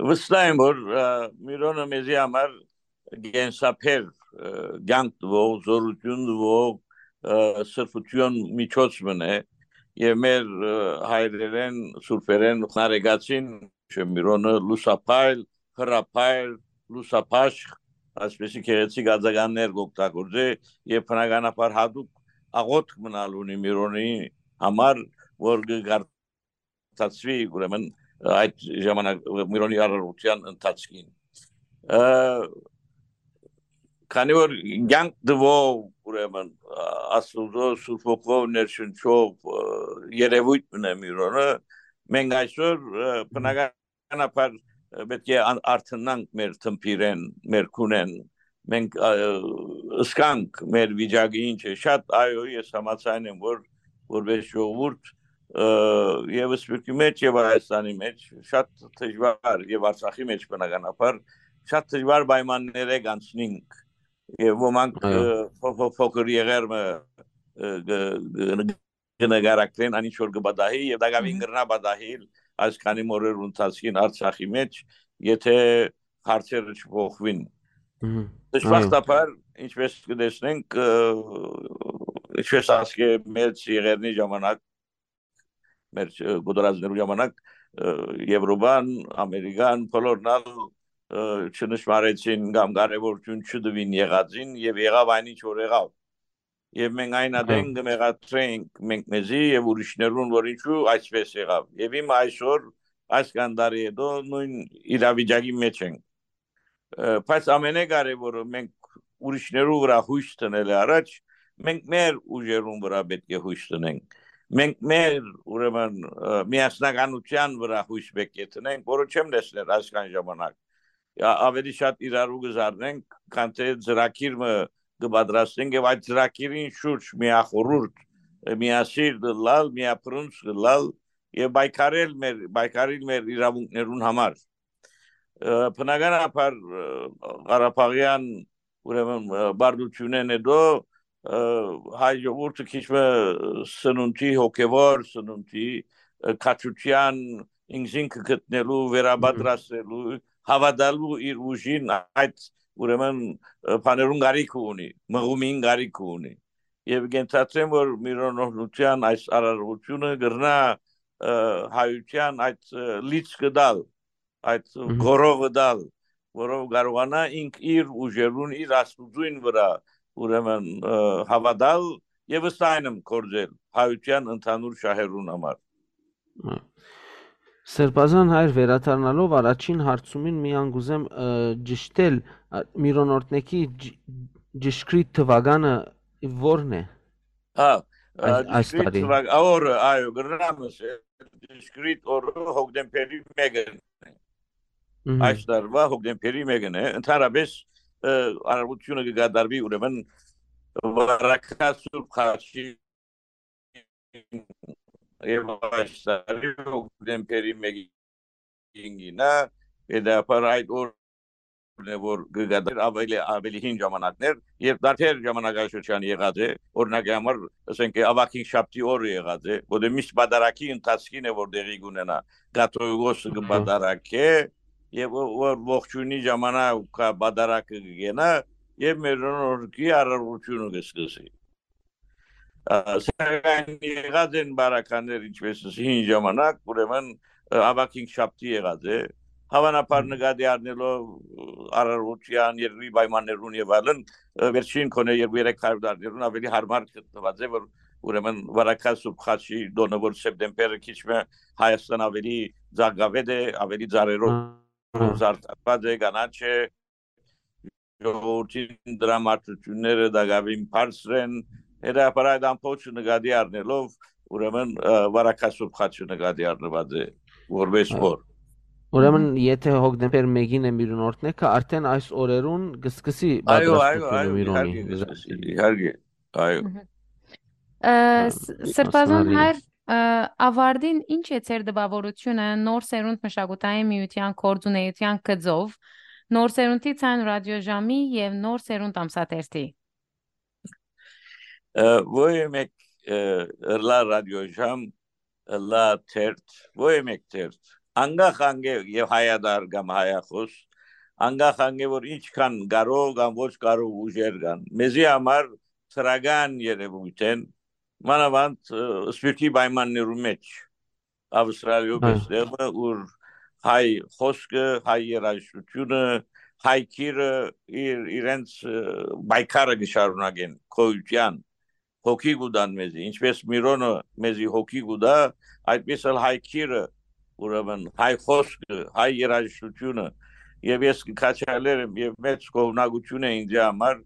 Վստահ եմ, որ, ը, Միրոնը մեզի համար կենսաբեր, ը, կյանք տուող, զօրութիւն տուող, ը, սրբութեան միջոց մըն է, եւ մեր, ը, հայրերէն, սուրբերէն Նարեկացին, Միրոնը լուսափայլ, հրափայլ, լուսափաշ, այսպեսի գեղեցիկ ածականներ կօգտագործէ, եւ բնականաբար հատուկ աղոթք մնալ ունի Միրոնի համար, որ կը կարդացուի, ուրեմն, այդ ժամանակ Միրոնի արարողութեան ընթացքին։ Ը, քանի որ կյանք տուող, ուրեմն, Աստուծոյ Սուրբ Հոգով ներշնչող, ը, երևույթ մնա Միրոնը, մենք այսօր, ը, բնականաբար, ը, պէտք է ան-, արթնանանք մեր թմբիրէն, մեր քունէն, մենք, ը, ըսկանք մեր վիճակը ինչ է, շատ, այո, ես համաձայն եմ, որ որպես ժողովուրդ, ը, եւ Սփյուռքի մեջ, եւ Հայաստանի մեջ շատ դժվար, եւ Արցախի մեջ բնականաբար շատ դժվար պայմաններ է կանցնենք, եւ ոմանք, Այո։ ը, փո-, փո-, փոքր եղեր մը, ը, գ-, գ-, կը նկարագրեն, ան ինչ որ կը պատահի, եւ տակաւին Մհմ։ կրնայ պատահիլ այս քանի մը օրերու ընթացքին Արցախի մեջ, եթե հարցերը չփոխուին։ Մհմ։ Դժբախտաբար, ինչպես կը տեսնենք, ը, ինչպես ասկէ մեծ եղերնի ժամանակ, մեր, ը, կուտորածներու ժամանակ, ը, Եվրոպան, Ամերիկան, բոլորն ալ, ը, չնշմարեցին կամ կարեւորութիւն չտուին եղածին, եւ եղաւ այն ինչ որ եղաւ։ Եւ մենք այն Հա։ ատեն կը մեղադրենք մենք մեզի եւ ուրիշներուն, որ ինչու այսպես եղաւ։ Եւ հիմա այսօր, այս քանի տարի հետո նոյն իրավիճակի մեջ ենք։ Ը, բայց ամենակարեւորը մենք ուրիշներու վրա յոյս դնել է առաջ, մենք մեր ուժերուն վրա պէտք է յոյս դնենք։ Մենք մեր, ուրեմն, ը, միասնականութեան վրա յոյս պէտք է դնենք, որը չեմ տեսներ այսքան ժամանակ։ Ա-, ավելի շատ իրարու կը զարնենք, քան թե ծրագիր մը կը պատրաստենք եւ այդ ծրագիրին շուրջ միախորհուրդ, ը, միասիրտ ըլլալ, միապրունց ըլլալ, եւ պայքարել մեր, պայքարել մեր իրաւունքներուն համար։ Ը, բնականաբար, ը, Ղարաբաղեան, ուրեմն, ը, պարտութիւնէն հետո, ը, հայ ժողովուրդը քիչ մը սնունդի, հոգեվոր սնունդի, ը, քաջութեան ինքզինքը գտնելու, վերապատրաստելու, հաւատալու իր ուժին, այդ, ուրեմն, ը, բաներուն կարիքը ունի, մղումին կարիքը ունի։ Եւ կենթացեմ, որ միլիոնօրհնութեան այս արարողությունը կրնայ, ը, հայութեան այդ, ը, լիցքը տալ, այդ Մհմ։ գորովը տալ, որով կարողանայ ինք իր ուժերուն, իր աստուծոյն վրայ, ուրեմն, ը, հաւատալ եւ ըստ այնմ գործել հայութեան ընդհանուր շահերուն համար։ Սրբազան հայր, վերադառնալով առաջին հարցումին, միան կուզեմ, ը, ճշտել, ա, միլիոնօրհնեքի ջ-, ճշգրիտ թուականը ո՞րն է Հա, ա, այս, այս ճշգրիտ տարի։ թվակ-, ա, օրը, այո, կրնամ ասել, ճշգրիտ օրը հոկտեմբերի մեկն է։ Մհմ։ Այս տարուայ հոկտեմբերի մեկն է։ Ընդհանրապես, ը, արարողությունը կկատարուի, ուրեմն, Վարագա Սուրբ Խաչի եւ այս տարի հոկտեմբերի մեկին գինա, հետաբար այդ օրն է, որ կգադար ավելի, ավելի հին ժամանակներ, երբ դարբեր ժամանակաշրջան եղած է, օրինակի համար, ասենք, Ավագին շաբթի օրը եղած է, որտեղ միշտ պատարագի ընթացքին է, որ տեղի կունենա, կաթողիկոսը Մհմ։ կպատարագէ, եւ ո-, որ ողջույնի ժամանակ կա պատարագը կգենա, եւ մեր օրկի արարողությունը կսկսի։ Ա, սակայն եղած են բարականներ, ինչպես հին ժամանակ, ուրեմն, ը, Ավագին շաբթի եղած է։ Հավանաբար Մհմ։ նկատի առնելով, ը, արարողութեան, երկրի պայմաններուն եւ այլն, ը, վերջին քոնե երկու երեք հարյուր տարիներուն ավելի հարմար գտնուած է, որ ուրեմն Վարագա Սուրբ Խաչի տոնը, որ սեպտեմբերը քիչ մը Հայաստան ավելի ծակավետ է, ավելի ծառերով Ահա։ զարդարված է, կանաչ է, ժողովրդին դրամատուրգիաները տակաւին բարձր են, հետաբար այդ ամբողջը նկատի առնելով, ուրեմն, ը, Վարագա Սուրբ Խաչը նկատի առնված է որպես Ա, օր։ ուրեմն, Մհմ։ եթե հոկտեմբեր մեկին է միլիոնօրհնեքը, արդեն այս օրերուն կսկսի Այո, այո, պատրաստությունը այո, միլիոնի իհարկե կսկսի, իհարկե, այո։ Մհմ։ Ը, Ա, ս-, Սրբազան Ասմարի։ հայր, ը, ավարտին ի՞նչ է ձեր տպաւորութիւնը Նոր Սերունդ մշակութային միութեան գործունեութեան գծով, Նոր Սերունդի ցայն ռադիոժամի եւ Նոր Սերունդ ամսաթերթի։ Ը, ոյ մէկ, ը, ըլլայ ռադիոժամ, ըլլայ թերթ, ոյ մէկ թերթ, անկախ անկէ եւ հայատար կամ հայախոս, անկախ անկէ որ ինչքան կարող կամ ոչ կարող ուժեր կան, մեզի համար դրական երևույթ են, մանաւանդ, ը, սփիւռքի պայմաններու մէջ, Ավստրալիոյ Հա։ պէս տեղը, ուր հայ խօսքը, հայ երաժշտությունը, հայ կիրը իր, իրենց, ը, պայքարը կը շարունակեն գոյութեան, հոգի կու տան մեզի, ինչպես Միրոնը մեզի հոգի կու տայ, այդպես ալ հայ կիրը, ուրեմն հայ խօսքը, հայ երաժշտությունը, եւ ես կը քաջալերեմ, եւ մեծ գովնակություն է ինձի համար,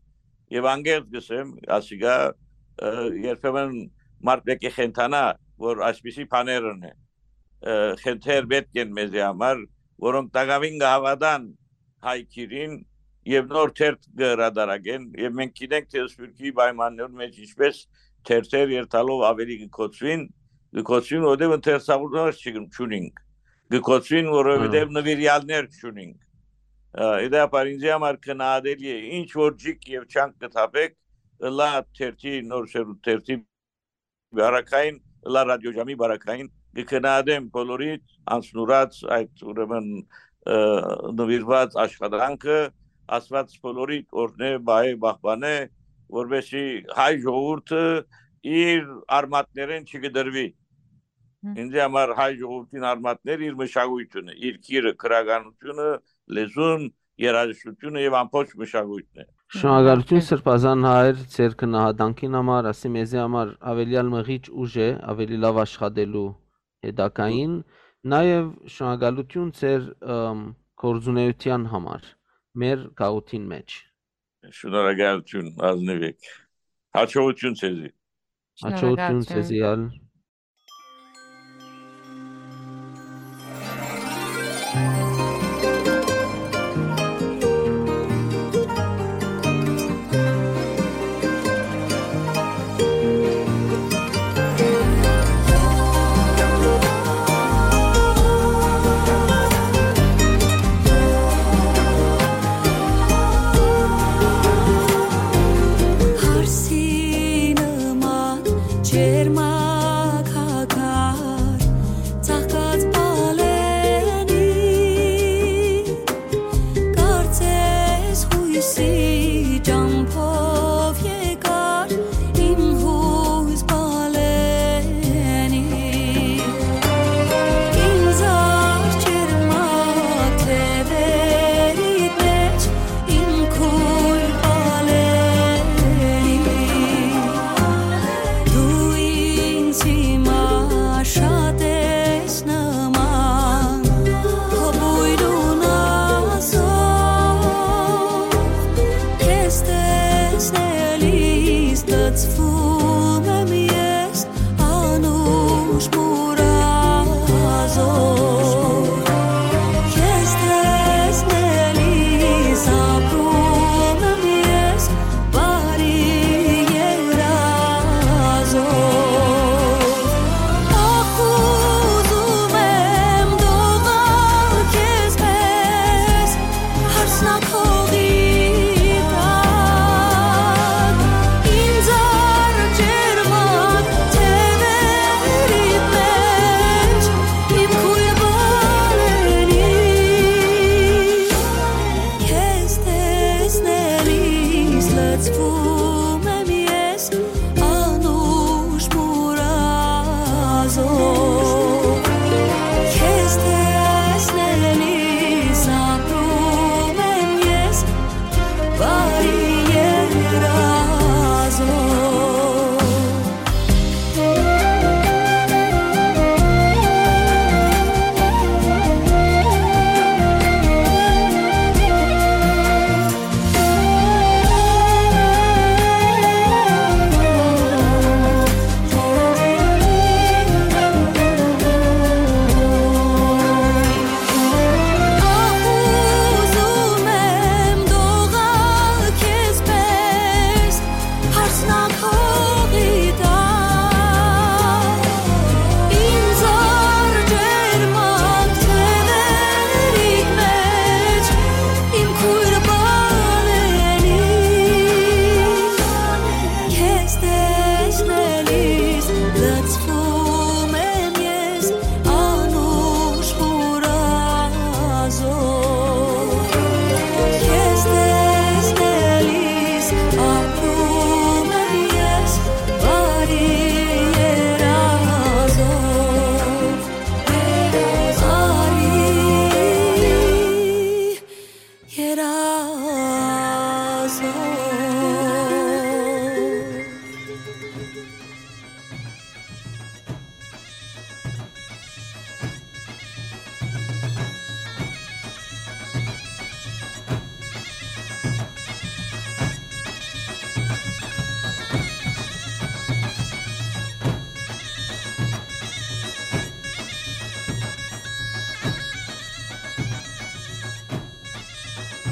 եւ անկեղծ կ'ըսեմ, ասիկա, ը, երբեմն մարդ պէտք է խենթանայ, որ այսպիսի բաներն է, ը, խենթեր պէտք են մեզի համար, որոնք տակաւին կը հաւատան հայ կիրին եւ նոր թերթ կը հրատարակեն, եւ մենք գիտենք, թէ սփիւռքի պայմաններուն մէջ ինչպես թերթեր երթալով ավելի կը կոչուին, կը կոչուին, որովհետեւ ընթերցողներ չկն-, չունինք, կը կոչուին, որովհետեւ Հա։ նվիրյալներ չունինք։ Ա, իդեպ, ինձի համար քննադատելի է, ինչ որ ջիկ եւ չանք կը թափեք, ըլլայ թերթի, Նոր Սերունդ թերթի բարակային, ըլլայ ռադիոժամի բարակային, կը քննադեմ բոլորի անցնուրած այդ, ուրեմն, ը, նվիրված աշխատանքը, Աստված բոլորի օրհնէ, պահէ, պահպանէ, որպեսզի հայ ժողովուրդը իր արմատներէն չկտրուի։ Հմ։ Ինձի համար հայ ժողովրդին արմատներ իր մշակույթունը, իր կիրը, գրականությունը, լեզուն, երաժշտությունը եւ ամբողջ մշակույթն է։ Շնորհակալություն, Հմ։ Սրբազան հայր, ձեր քննադանքին համար, ասի մեզի համար ավելի ալ մղիչ ուժ է, ավելի լավ աշխատելու հետագային, նաեւ շնորհակալություն ձեր, ըմ, գործունեության համար մեր գաղութին մէջ։ Շնորհակալություն, ազնիվ եք։ Հաջողություն ձեզի։ Հաջողություն Շնորհակալություն։ ձեզի ալ։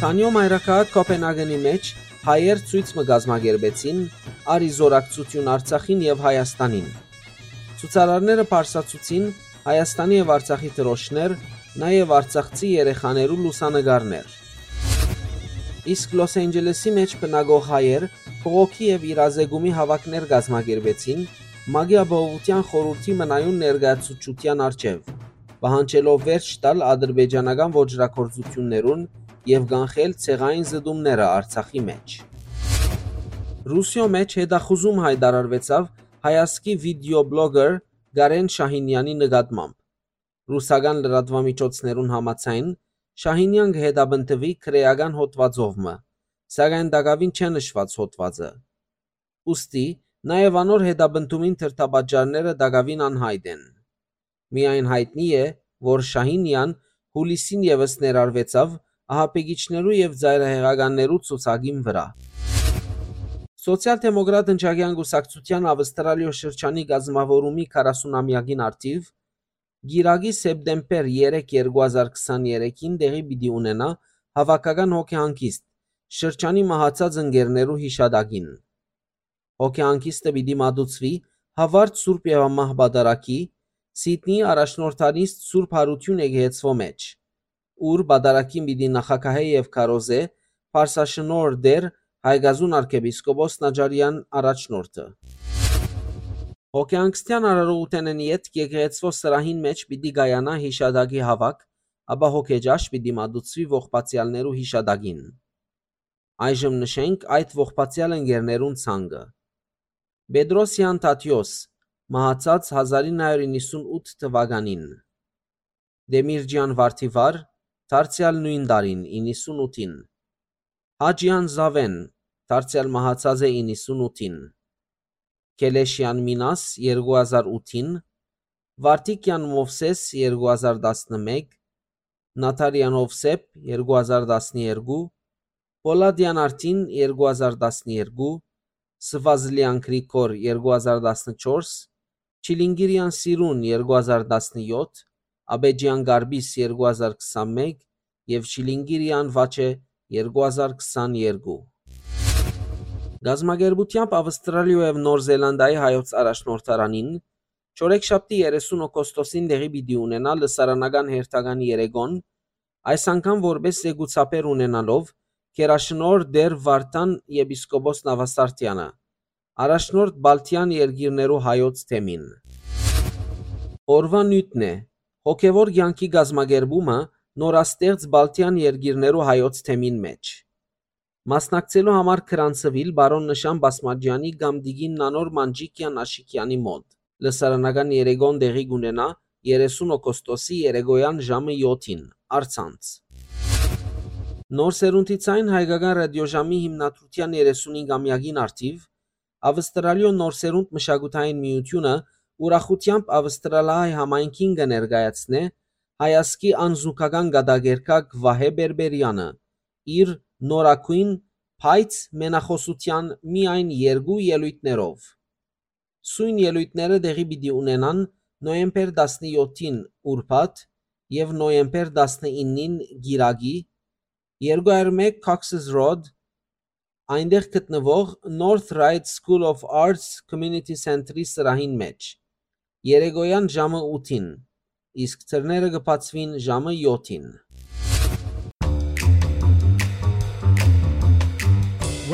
Դանիոյ մայրաքաղաք Կոպենհագենի մէջ հայեր ցոյց մը կազմակերպեցին՝ առ ի զօրակցութիւն Արցախին եւ Հայաստանին։ Ցուցարարները պարսացուցին Հայաստանի եւ Արցախի դրոշներ, նաեւ արցախցի երեխաներու լուսանկարներ։ Իսկ Լոս Անջելեսի մէջ բնակող հայեր բողոքի եւ իրազեկումի հաւաքներ կազմակերպեցին ՄԱԿ-ի Ապահովութեան խորհուրդի մնայուն ներկայացուցչութեան առջեւ, պահանջելով վերջ տալ ադրբեջանական ոճրագործութիւններուն եւ կանխել ցեղային զտումները Արցախի մէջ։ Ռուսիոյ մէջ հետախուզում յայտարարուեցաւ հայազգի վիդեոբլոգեր Կարեն Շահինեանի նկատմամբ։ Ռուսական լրատուամիջոցներուն համաձայն, Շահինեան կը հետապնդուի քրէական հոդուածով մը, սակայն տակաւին չէ նշուած հոդուածը։ Ուստի, նաեւ անոր հետապնդումին դրդապատճառները տակաւին անյայտ են։ Միայն յայտնի է, որ Շահինեան յուլիսին եւս ներառուեցաւ ահաբեկիչներու եւ ծայրահեղականներու ցուցակին վրայ։ Սոցիալ-դեմոկրատ ընչակեան կուսակցութեան Ավստրալիոյ շրջանի կազմաւորումի քառասունամեակին առթիւ Կիրակի, սեպտեմբեր երեք, երկու հազար քսաներեքին տեղի պիտի ունենայ հաւաքական հոգեհանգիստ շրջանի մահացած ընկերներու յիշատակին։ Հոգեհանգիստը պիտի մատուցուի Հաւարտ Սուրբ Եւամահ Պատարագի, Սիդնիի առաջնորդանիստ Սուրբ Յարութիւն եկեղեցւոյ մէջ, ուր պատարագին պիտի նախագահէ եւ քարոզէ Պարսաշնորհ Տէր Հայկազուն արքեպիսկոպոս Նաճարեան առաջնորդը։ Հոգեհանգստեան արարողութենէն ետք եկեղեցւոյ սրահին մէջ պիտի կայանայ յիշատակի հաւաք, ապա հոգեճաշ պիտի մատուցուի ողբացեալներու յիշատակին։ Այժմ նշենք այդ ողբացեալ ընկերներուն ցանկը։ Պետրոսեան Թադիոս, մահացած հազար ինը հարիւր իննսունութ թուականին։ Դեմիրճեան Վարդիվար, դարձեալ նոյն տարին, իննսունութին։ Հաճեան Զաւէն, դարձեալ մահացած է իննսունութին։ Քելեշեան Մինաս, երկու հազար ութին, Վարդիկեան Մովսէս, երկու հազար տասնմէկ, Նաթարեան Ովսէփ, երկու հազար տասներկու, Պոլադեան Արտին, երկու հազար տասներկու, Սվազլեան Գրիգոր, երկու հազար տասնչորս, Չիլինգիրեան Սիրուն, երկու հազար տասնյոթ, Աբեջեան Գարբիս, երկու հազար քսանմէկ եւ Չիլինգիրեան Վաչէ, երկու հազար քսաներկու։ Կազմակերպութեամբ Ավստրալիոյ եւ Նոր Զելանդիայի հայոց առաջնորդարանին չորեքշաբթի, երեսուն օգոստոսին տեղի պիտի ունենայ լսարանական հերթական երեկոն, այս անգամ որպէս զեկուցաբեր ունենալով Գերաշնորհ Տէր Վարդան եպիսկոպոս Նավասարդեանը, առաջնորդ Բալթյան երկիրներու հայոց թեմին։ Օրուան նիւթն է, հոգեւոր կեանքի կազմակերպումը նորաստեղծ Բալթյան երկիրներու հայոց թեմին մէջ։ Մասնակցելու համար գրանցուիլ պարոն Նշան Բասմաճեանի կամ տիկին Նանոր Մանջիկեան Աշիկեանի մօտ։ Լսարանական երեկոն տեղի կունենայ երեսուն օգոստոսի երեկոյան ժամը յոթին, առցանց։ Նոր սերունդի ցայն հայկական ռադիոժամի հիմնադրութեան երեսունհինգամեակին առթիւ Ավստրալիոյ Նոր սերունդ մշակութային միութիւնը ուրախութեամբ Ավստրալահայ համայնքին կը ներկայացնէ հայազգի անզուգական կատակերգակ Վահէ Պէրպէրեանը իր նորագոյն, բայց մենախօսութեան միայն երկու ելոյթներով։ Սոյն ելոյթները տեղի պիտի ունենան նոյեմբեր տասնյոթին ուրբաթ եւ նոյեմբեր տասնինին կիրակի, երկու հարյուր մէկ Cox's Road, այնտեղ գտնուող North Ryde School of Arts Community Center-ի սրահին մէջ, երեկոյան ժամը ութին, իսկ դռները կը բացուին ժամը յոթին։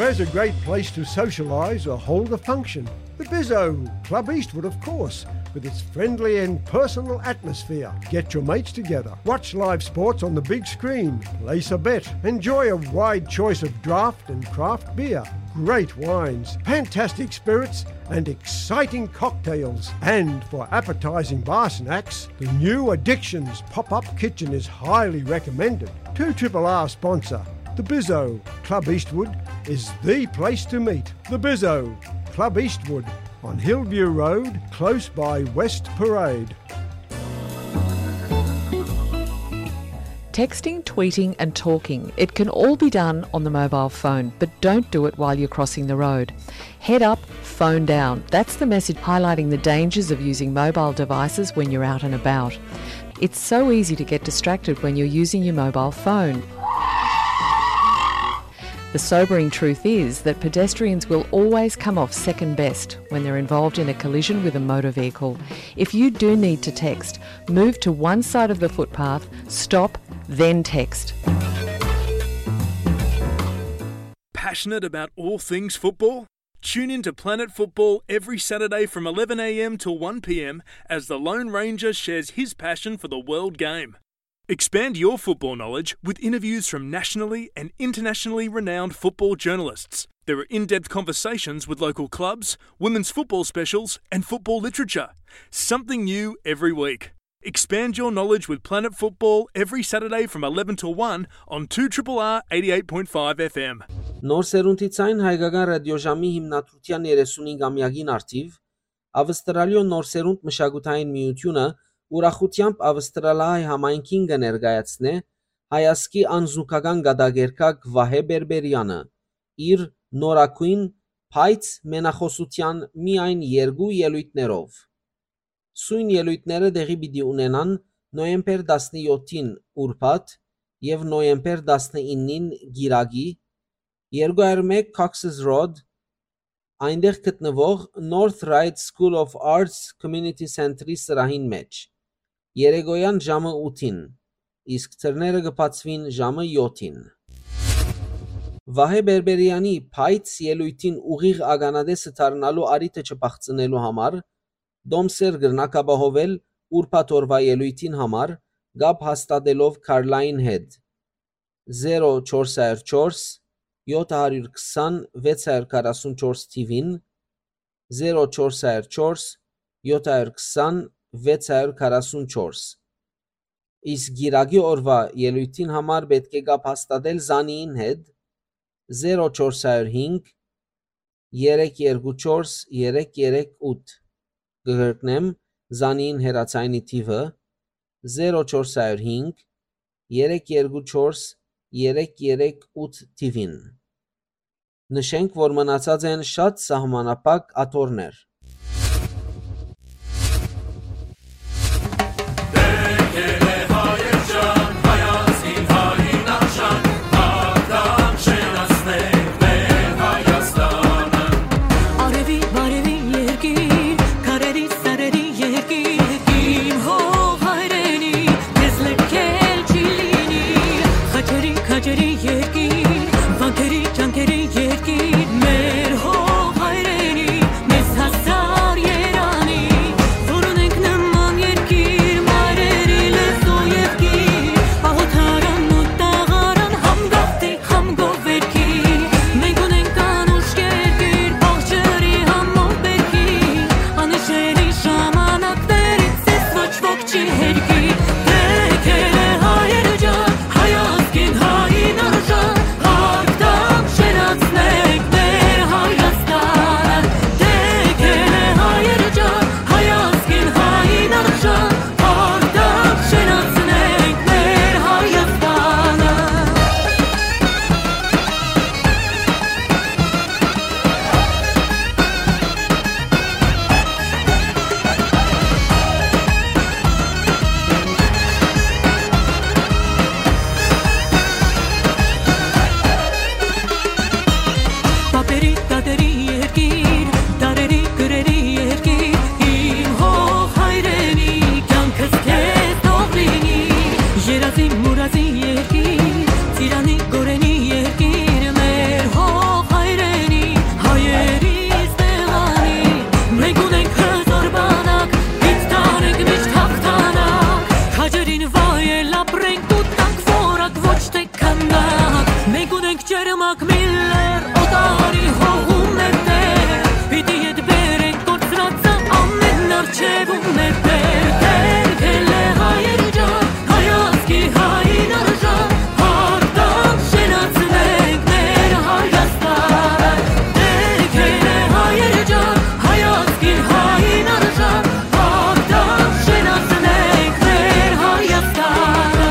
Where's a great place to socialise or hold a function? The Bizzo, Club Eastwood, of course, with its friendly and personal atmosphere. Get your mates together, watch live sports on the big screen, place a bet, enjoy a wide choice of draft and craft beer, great wines, fantastic spirits, and exciting cocktails. And for appetising bar snacks, the new Addictions pop-up kitchen is highly recommended. Two triple R sponsor, the Bizzo, Club Eastwood, is the place to meet. The Bizzo, Club Eastwood, on Hillview Road, close by West Parade. Texting, tweeting, and talking, it can all be done on the mobile phone, but don't do it while you're crossing the road. Head up, phone down. That's the message highlighting the dangers of using mobile devices when you're out and about. It's so easy to get distracted when you're using your mobile phone. The sobering truth is that pedestrians will always come off second best when they're involved in a collision with a motor vehicle. If you do need to text, move to one side of the footpath, stop, then text. Passionate about all things football? Tune in to Planet Football every Saturday from eleven a.m. to one p.m. as the Lone Ranger shares his passion for the world game. Expand your football knowledge with interviews from nationally and internationally renowned football journalists. There are in-depth conversations with local clubs, women's football specials, and football literature. Something new every week. Expand your knowledge with Planet Football every Saturday from eleven to one on two triple R eighty-eight point five F M. Նոր սերունդի ցայն հայկական ռադիոժամի հիմնադրության երեսունհինգամեակին առթիւ Ավստրալիոյ նոր սերունդ մշակութային միութիւնը ուրախութեամբ ավստրալահայ համայնքին կը ներկայացնէ հայազգի անզուգական կատակերգակ Վահէ Բերբերեանը իր նորագոյն, բայց մենախօսութեան միայն երկու ելոյթներով։ Սոյն ելոյթները տեղի պիտի ունենան նոյեմբեր տասնեօթին ուրբաթ եւ նոյեմբեր տասնիննին կիրակի, երկու հարյուր մէկ Cox's Road, այնտեղ գտնուող North Ryde School of Arts Community Center-ի սրահին մէջ, երեկոյեան ժամը ութին, իսկ դռները կը բացուին ժամը յոթին։ Վահէ Բերբերեանի բայց ելոյթին ուղիղ ականատեսը դառնալու առիթը չփախցնելու համար, Դոմսեր կրնաք ապահովել ուրբաթ օրուայ ելոյթին համար կապ հաստատելով Քարլային հետ, զերո չորս հարյուր չորս, յոթ հարյուր քսան, վեց հարյուր քառասուն չորս թիւին, զերո չորս հարյուր չորս, յոթ հարյուր քսան, վեց հարյուր քառասուն չորս։ Իսկ կիրակի օրուայ ելոյթին համար պէտք է կապ հաստատել Զանիին հետ, զերո չորս հարյուր հինգ, երեք երկու չորս, երեք երեք ութ։ Կը կրկնեմ Զանիին հեռաձայնի թիւը, զերո չորս հարյուր հինգ, երեք երկու չորս, երեք երեք ութ թիւին։ Նշենք, որ մնացած են շատ սահմանափակ աթոռներ։ Արեւի, բարեւի երկիր, քարերի, սարերի երկիր, իմ հող հայրենի, քեզ լքել չի լինի։ Խաչերի, քաջերի երկիր, վանքերի, ճանկերի երկիր, մեր հող հայրենի, մեզ հասար երանի, որ ունենք նման երկիր, մայրերի լեզու եւ գիր, աղոթարան ու տաղարան, համ գաղտնի, համ գովերքի, մենք ունենք անուշ երկիր, բաղ ջրի համով բերքի, անհիշելի ժամանակներից ես ոչ ոք չի հերքի, դեքել է հայեր ջան, հայ ազգին հային արժան, հարկ տանք, շենացնենք մեր Հայաստանը, դեքել է հայեր ջան, հայ ազգին հային արժան, հարկ տանք, շենացնենք մեր Հայաստանը։ Պապերի, տատերի երկիր, դարերի, կրերի երկիր, իմ հող հայրենի, կյանքս քեզ թող լինի, երազի, մուրազի երկիր, ծիրանի, գորենի երկիր, մեր հող հայրենի, հայերիս տեղանի, մենք ունենք հզոր բանակ, պիտի տանենք միշտ հաղթանակ, քաջերին վայել ապրենք ու տանք որակ, ոչ թե քանակ, մենք ունենք ջերմակ Միլլեր, օտարի հողու մեր տեր, պիտի ետ բերենք կորցրածը ամեն արջևում մեր տեր, դեքել է հայեր ջան, հայ ազգի հային արժան, հարկ տանք, շենացնենք մեր Հայաստանը, դեքել է հայեր ջան, հայ ազգի հային արժան, Հաղթանք շենացնենք մեր Հայաստանը։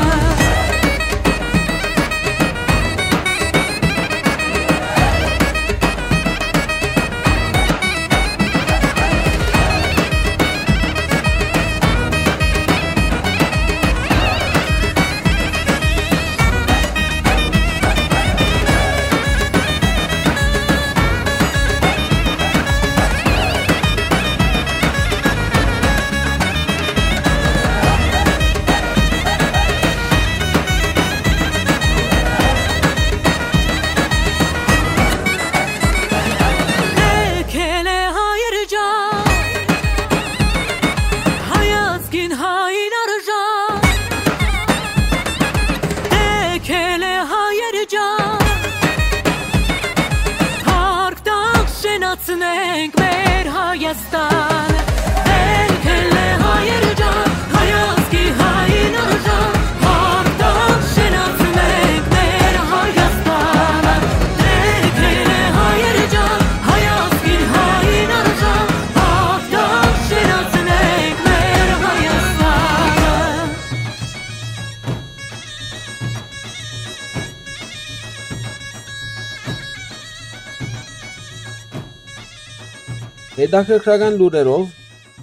Հետաքրքրական լուրերով,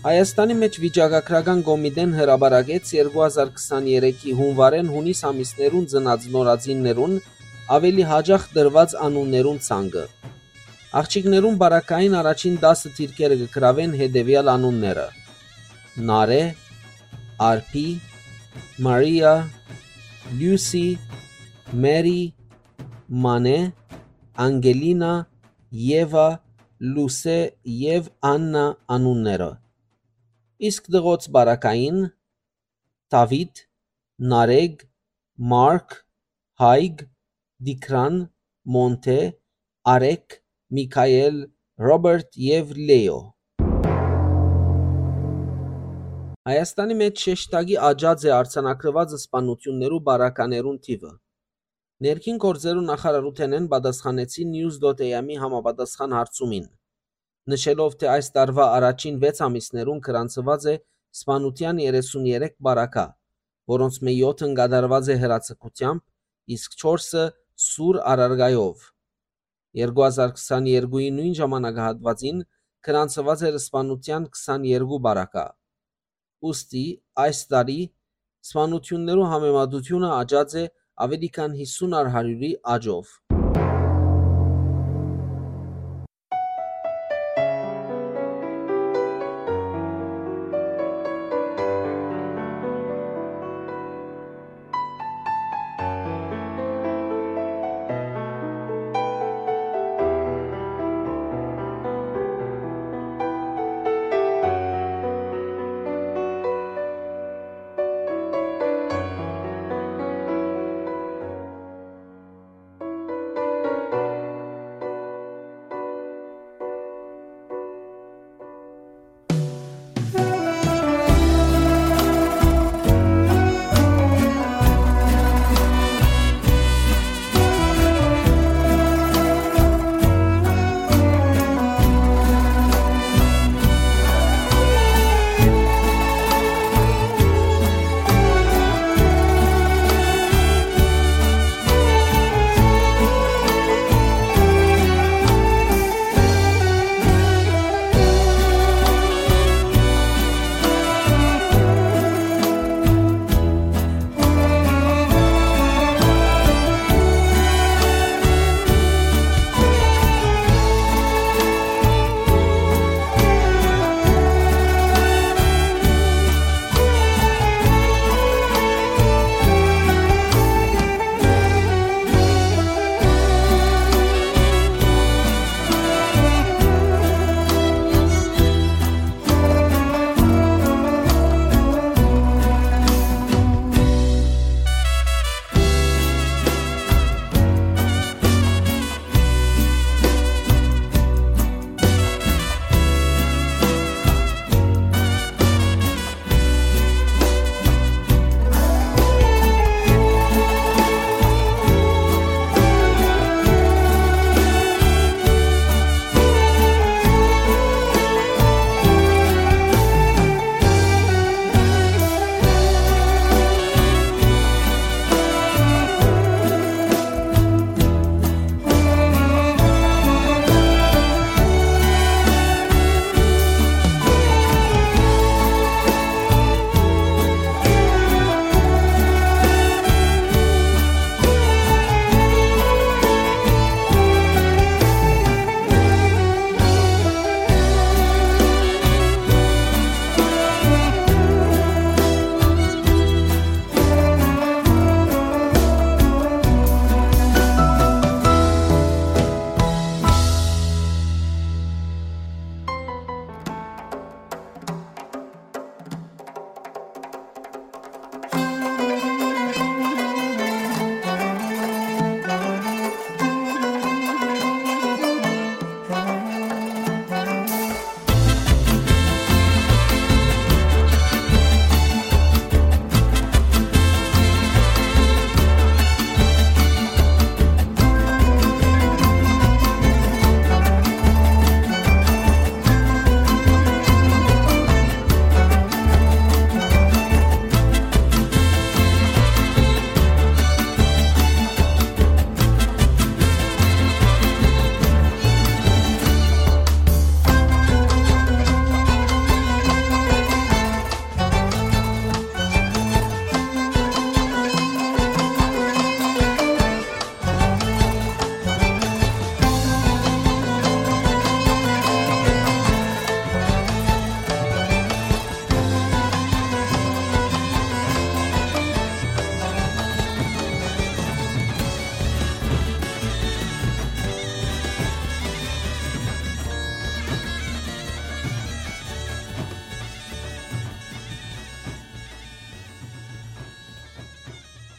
Հայաստանի մէջ վիճակագրական կոմիտեն հրապարակեց երկու հազար քսաներեքի հունուարէն յունիս ամիսներուն ծնած նորածիններուն աւելի յաճախ տրուած անուններուն ցանկը։ Աղջիկներուն պարագային առաջին տասը դիրքերը կը գրաւեն հետեւեալ անունները. Նարէ, Արփի, Մարիա, Լիուսի, Մերի, Մանէ, Անգելինա, Եվա, Լուսէ եւ Աննա անունները։ Իսկ տղոց պարագային՝ Դաւիթ, Նարեկ, Մարկ, Հայկ, Տիգրան, Մոնթէ, Արեկ, Միքայել, Ռոբերտ եւ Լեո։ Հայաստանի մէջ շեշտակի աճած է արձանագրուած սպաննութիւններու պարագաներուն թիւը։ Ներքին գործերու նախարարութենէն պատասխանեցին News dot A M-ի համապատասխան հարցումին, նշելով, թէ այս տարուայ առաջին վեց ամիսներուն գրանցուած է սպանութեան երեսուն երեք պարագայ, որոնցմէ եօթն կատարուած է հրաձգութեամբ, իսկ չորսը՝ սուր առարկայով։ Երկու հազար քսաներկուին նոյն ժամանակահատուածին գրանցուած էր սպանութեան քսաներկու պարագայ։ Ուստի այս տարի սպանութիւններու համեմատութիւնը աճած է աւելի քան յիսուն առ հարիւրի աճով։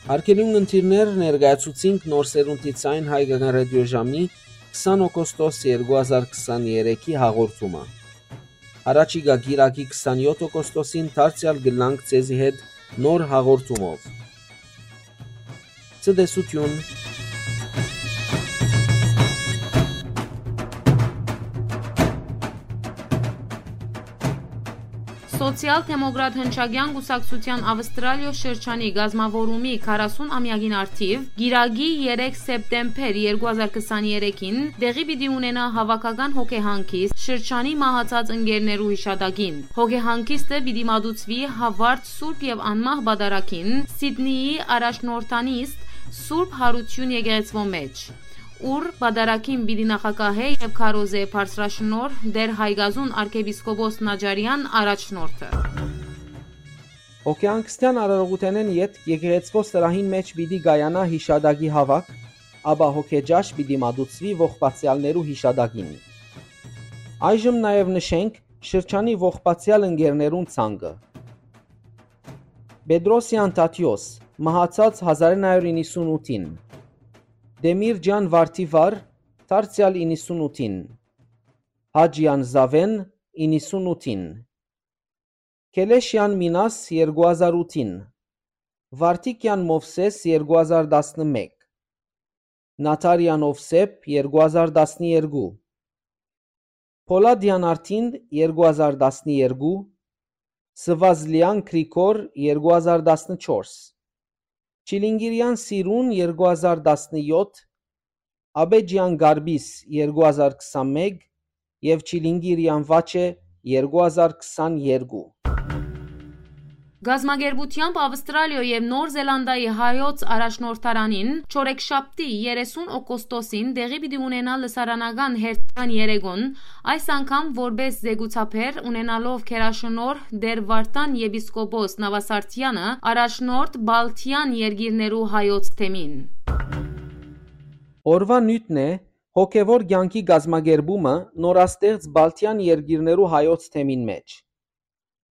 Արգելուն ընտիրներ, ներկայացուցինք Նոր Սերունդի Ձայն հայկական ռադիոժամի քսան օգոստոս երկու հազար քսաներեքի հաղորդումը։ Առաջիկա կիրակի քսանեօթ օգոստոսին դարձեալ կ'ըլլանք ձեզի հետ նոր հաղորդումով։ Ցտեսութիւն։ Սոցիալ-դեմոկրատ հնչակեան կուսակցութեան Ավստրալիոյ շրջանի կազմաւորումի քառասուն ամեակին առթիւ, կիրակի երեք սեպտեմբեր երկու հազար քսաներեքին, տեղի պիտի ունենայ հաւաքական հոգեհանգիստ շրջանի մահացած ընկերներու յիշատակին։ Հոգեհանգիստը պիտի մատուցուի Հովարտ Սուրբ եւ Անմահ Պատարագին, Սիդնիի առաջնորդանիստ Սուրբ Յարութիւն եկեղեցւոյ մէջ, ուր պատարագին պիտի նախագահէ եւ քարոզէ բարձրաշնորհ Տէր Հայկազուն արքեպիսկոպոս Նաճարեան առաջնորդը։ Հոգեհանգստեան արարողութենէն ետք եկեղեցւոյ սրահին մէջ պիտի կայանայ յիշատակի հաւաք, ապա հոգեճաշ պիտի մատուցուի ողբացեալներու յիշատակին։ Այժմ նաեւ նշենք շրջանի ողբացեալ ընկերներուն ցանկը։ Պետրոսեան Թադիոս, մահացած հազար իննսուն ութին։ Տեմիրճեան Վարդիվար, դարձեալ իննսուն ութին։ Հաճեան Զաւէն, իննսուն ութին։ Քելեշեան Մինաս, երկու հազար ութին։ Վարդիկեան Մովսէս, երկու հազար տասնմէկ։ Նաթարեան Ովսէփ, երկու հազար տասներկու։ Փոլադեան Արթին, երկու հազար տասներկու։ Սվազլեան Գրիգոր, երկու հազար տասնչորս։ Չիլինգիրեան Սիրուն, երկու հազար տասնեօթ։ Աբեջեան Գարբիս, երկու հազար քսանմէկ, եւ Չիլինգիրեան Վաչէ, երկու հազար քսաներկու։ Կազմակերպութեամբ Ավստրալիոյ եւ Նոր Զելանդիայի հայոց առաջնորդարանին Չորեքշաբթի երեսուն օգոստոսին տեղի պիտի ունենայ լսարանական հերթական երեկոն, այս անգամ որպէս զեկուցաբեր, ունենալով գերաշնորհ Տէր Վարդան եպիսկոպոս Նավասարդեանը, առաջնորդ Բալթեան երկիրներու հայոց թեմին։ Օրուան նիւթն է հոգեւոր կեանքի կազմակերպումը նորաստեղծ Բալթեան երկիրներու հայոց թեմին մէջ։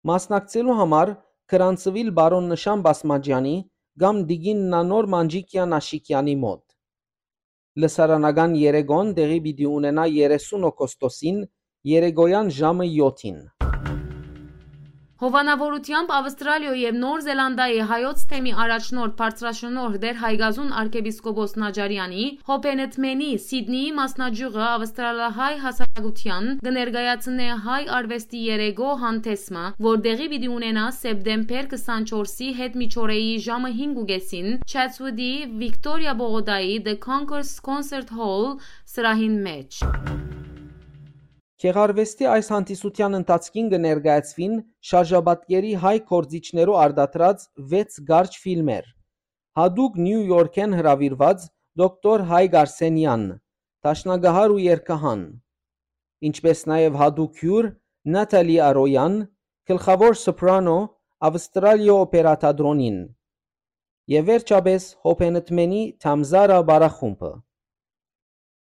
Մասնակցելու համար գրանցուիլ պարոն Նշան Բասմաճեանի կամ տիկին Նանոր Մանջիկեան Աշիկեանի մօտ։ Լսարանական երեկոն տեղի պիտի ունենայ երեսուն օգոստոսին երեկոյեան ժամը եօթին։ Հովանաւորութեամբ Ավստրալիոյ եւ Նոր Զելանդիայի հայոց թեմի առաջնորդ բարձրաշնորհ Տէր Հայկազուն արքեպիսկոպոս Նաճարեանի, Հոբենեթմենի, Սիդնիի մասնաճիւղը ավստրալահայ հասարակութեան կը ներկայացնէ հայ արուեստի երեկոյ հանդէսը, որ տեղի պիտի ունենայ սեպտեմբեր քսանչորսի հետ միջօրեի ժամը հինգ ու կէսին, Չատսուտի Վիկտորիա պողոտայի The Concourse Concert Hall սրահին մէջ։ Գեղարուեստի այս հանդիսութեան ընթացքին կը ներկայացուին շարժապատկերի հայ գործիչներու արտադրած վեց կարճ ֆիլմեր, յատուկ Նիու Յորքէն հրաւիրուած դոկտոր Հայկ Արսենեան, դաշնակահար ու երգահան, ինչպէս նաեւ յատուկ հիւր Նաթալի Արոյան, գլխաւոր սոպրանո Ավստրալիոյ օպերա թատրոնին, եւ վերջապէս Հոբենեթմենի Թամզարա պարախումբը։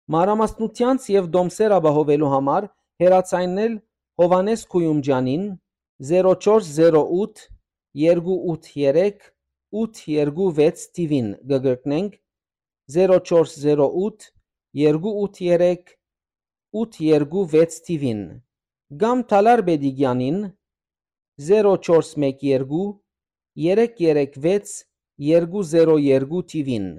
Մանրամասնութեանց եւ տոմսեր ապահովելու համար հեռաձայնել Յովհաննէս Քոյումճեանին զերո չորս զերո ութ երկու ութ երեք ութ երկու վեց թիվին, կը կրկնենք, զերո չորս զերո ութ երկու ութ երեք ութ երկու վեց թիվին, կամ Թալար Պետիկեանին զերո չորս մեկ երկու երեք երեք վեց երկու զերո երկու թիվին։